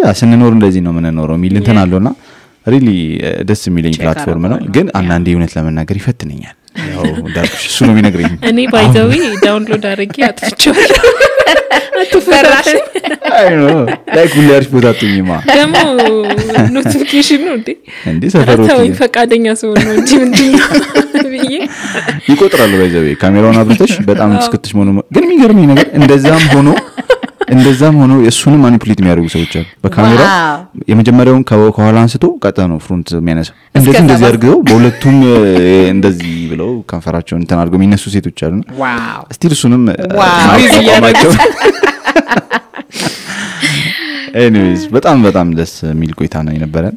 ያ ስንኖር እንደዚህ ነው ምንኖረው ሚል እንትን አለውና ሪሊ ደስ የሚለኝ ፕላትፎርም ነው ግን አንዳንዴ እውነት ለመናገር ይፈትነኛል ያው ዳርክሽ እሱ ነው የሚነግረኝ እኔ ባይ ዘ ዌይ ዳውንሎድ አድርጌ አጥፍቼዋለሁ አትፈራሽ አይ ኖ ላይክ ሁላርሽ ቦታ አጥኝማ ደሞ ኖቲፊኬሽን ነው እንዴ ሰፈሮች ታው ፈቃደኛ ሰው ነው እንጂ ምንድነው ብዬ ይቆጥራል ባይ ዘ ዌይ ካሜራውን አብርተሽ በጣም እስክትሽ ሆኖ ግን የሚገርመኝ ነገር እንደዛም ሆኖ የሱንም ማኒፑሌት የሚያደርጉ ሰዎች አሉ በካሜራ የመጀመሪያውን ከኋላ አንስቶ ቀጣ ነው ፍሮንት የሚያነሳው እንደዚህ አድርገው በሁለቱም እንደዚህ ብለው ከንፈራቸውን እንትን አድርገው የሚነሱ ሴቶች አሉና ዋው ስቲል እሱንም ማይቆማቸው anyways በጣም ደስ የሚል ቆይታ ነው የነበረን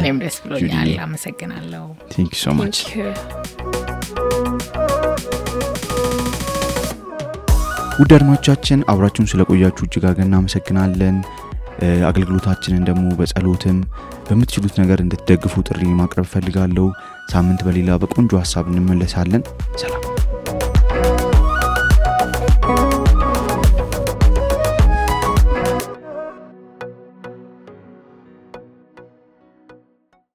እኔም ደስ ብሎኛል አመሰግናለሁ thank you so much ውድ አድማጮቻችን አብራችሁን ስለቆያችሁ እጅግ አድርገን እናመሰግናለን አገልግሎታችንን ደግሞ በጸሎትም በምትችሉት ነገር እንድትደግፉ ጥሪ ማቅረብ ፈልጋለሁ ሳምንት በሌላ በቆንጆ ሐሳብ እንመለሳለን ሰላም